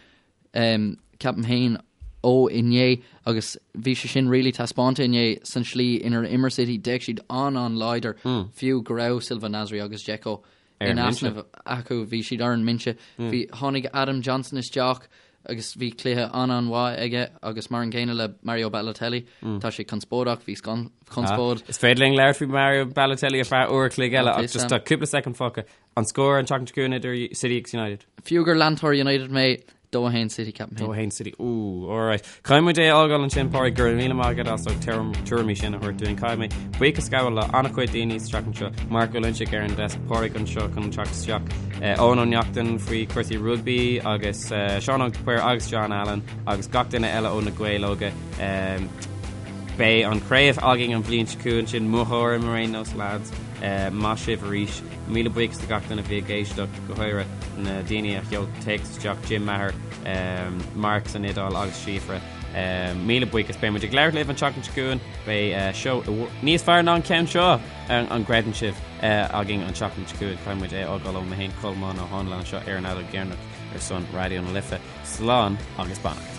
ceapaim féin. ó inné agus bhí sé sin really taispeánta inné san slí inar imir City, d'fhéach siad an-an-láidir fiú go raibh Silva Nasri agus Dzeko in easnamh acu, bhí siad ar an mbinse. Bhí, tháinig Adam Johnson isteach agus bhí cluiche an-an-mhaith aige agus mar an gcéanna le Mario Balotelli, tá sé conspóideach, bhí conspóid. Is féidir linn labhairt faoi Mario Balotelli ar feadh uair a chloig eile ach just tá cúpla soicind fágtha. An scór an tseachtain seo chugainn idir City agus United? Fiú gur leantóir United mé, 2-1 City ceapaim féin. 2-1 City, ooh, alright. Caithfidh muid é a fhágáil ansin, Pádraig, go raibh míle maith agat as ucht na tuairimí sin a thabhairt dúinn. Caithfidh mé buíochas a ghabháil le an-chuid daoine sa tseachtain seo, Mark Ó Loinsigh ar an desk, Pádraig anseo chun teacht isteach, Eoin Ó Neachtain faoi chúrsaí rugbaí agus Seán Óg de Paor agus John Allen agus gach duine eile ó na Gaeil Óga. Beidh an chraobh againn an bhliain seo chugainn sin mo thuairim ar aon nós lads. Maith sibh arís. Míle buíochas do gach duine a bhí ag éisteacht, go háirithe na daoine a sheol téacs isteach, Jim Maher, Mark san Iodáil agus Síofra. Míle buíochas. Beidh muid ag labhairt libh an tseachtain seo chugainn. Beidh seó níos fearr ná an ceann seo, an gcreideann sibh, againn an tseachtain seo chugainn. Caithfidh muid é a fhágáil ó mé féin, Colmán Ó Háinle anseo ar an Fheadóg Dheireanach ar son Raidió na Life. Slán agus beannacht.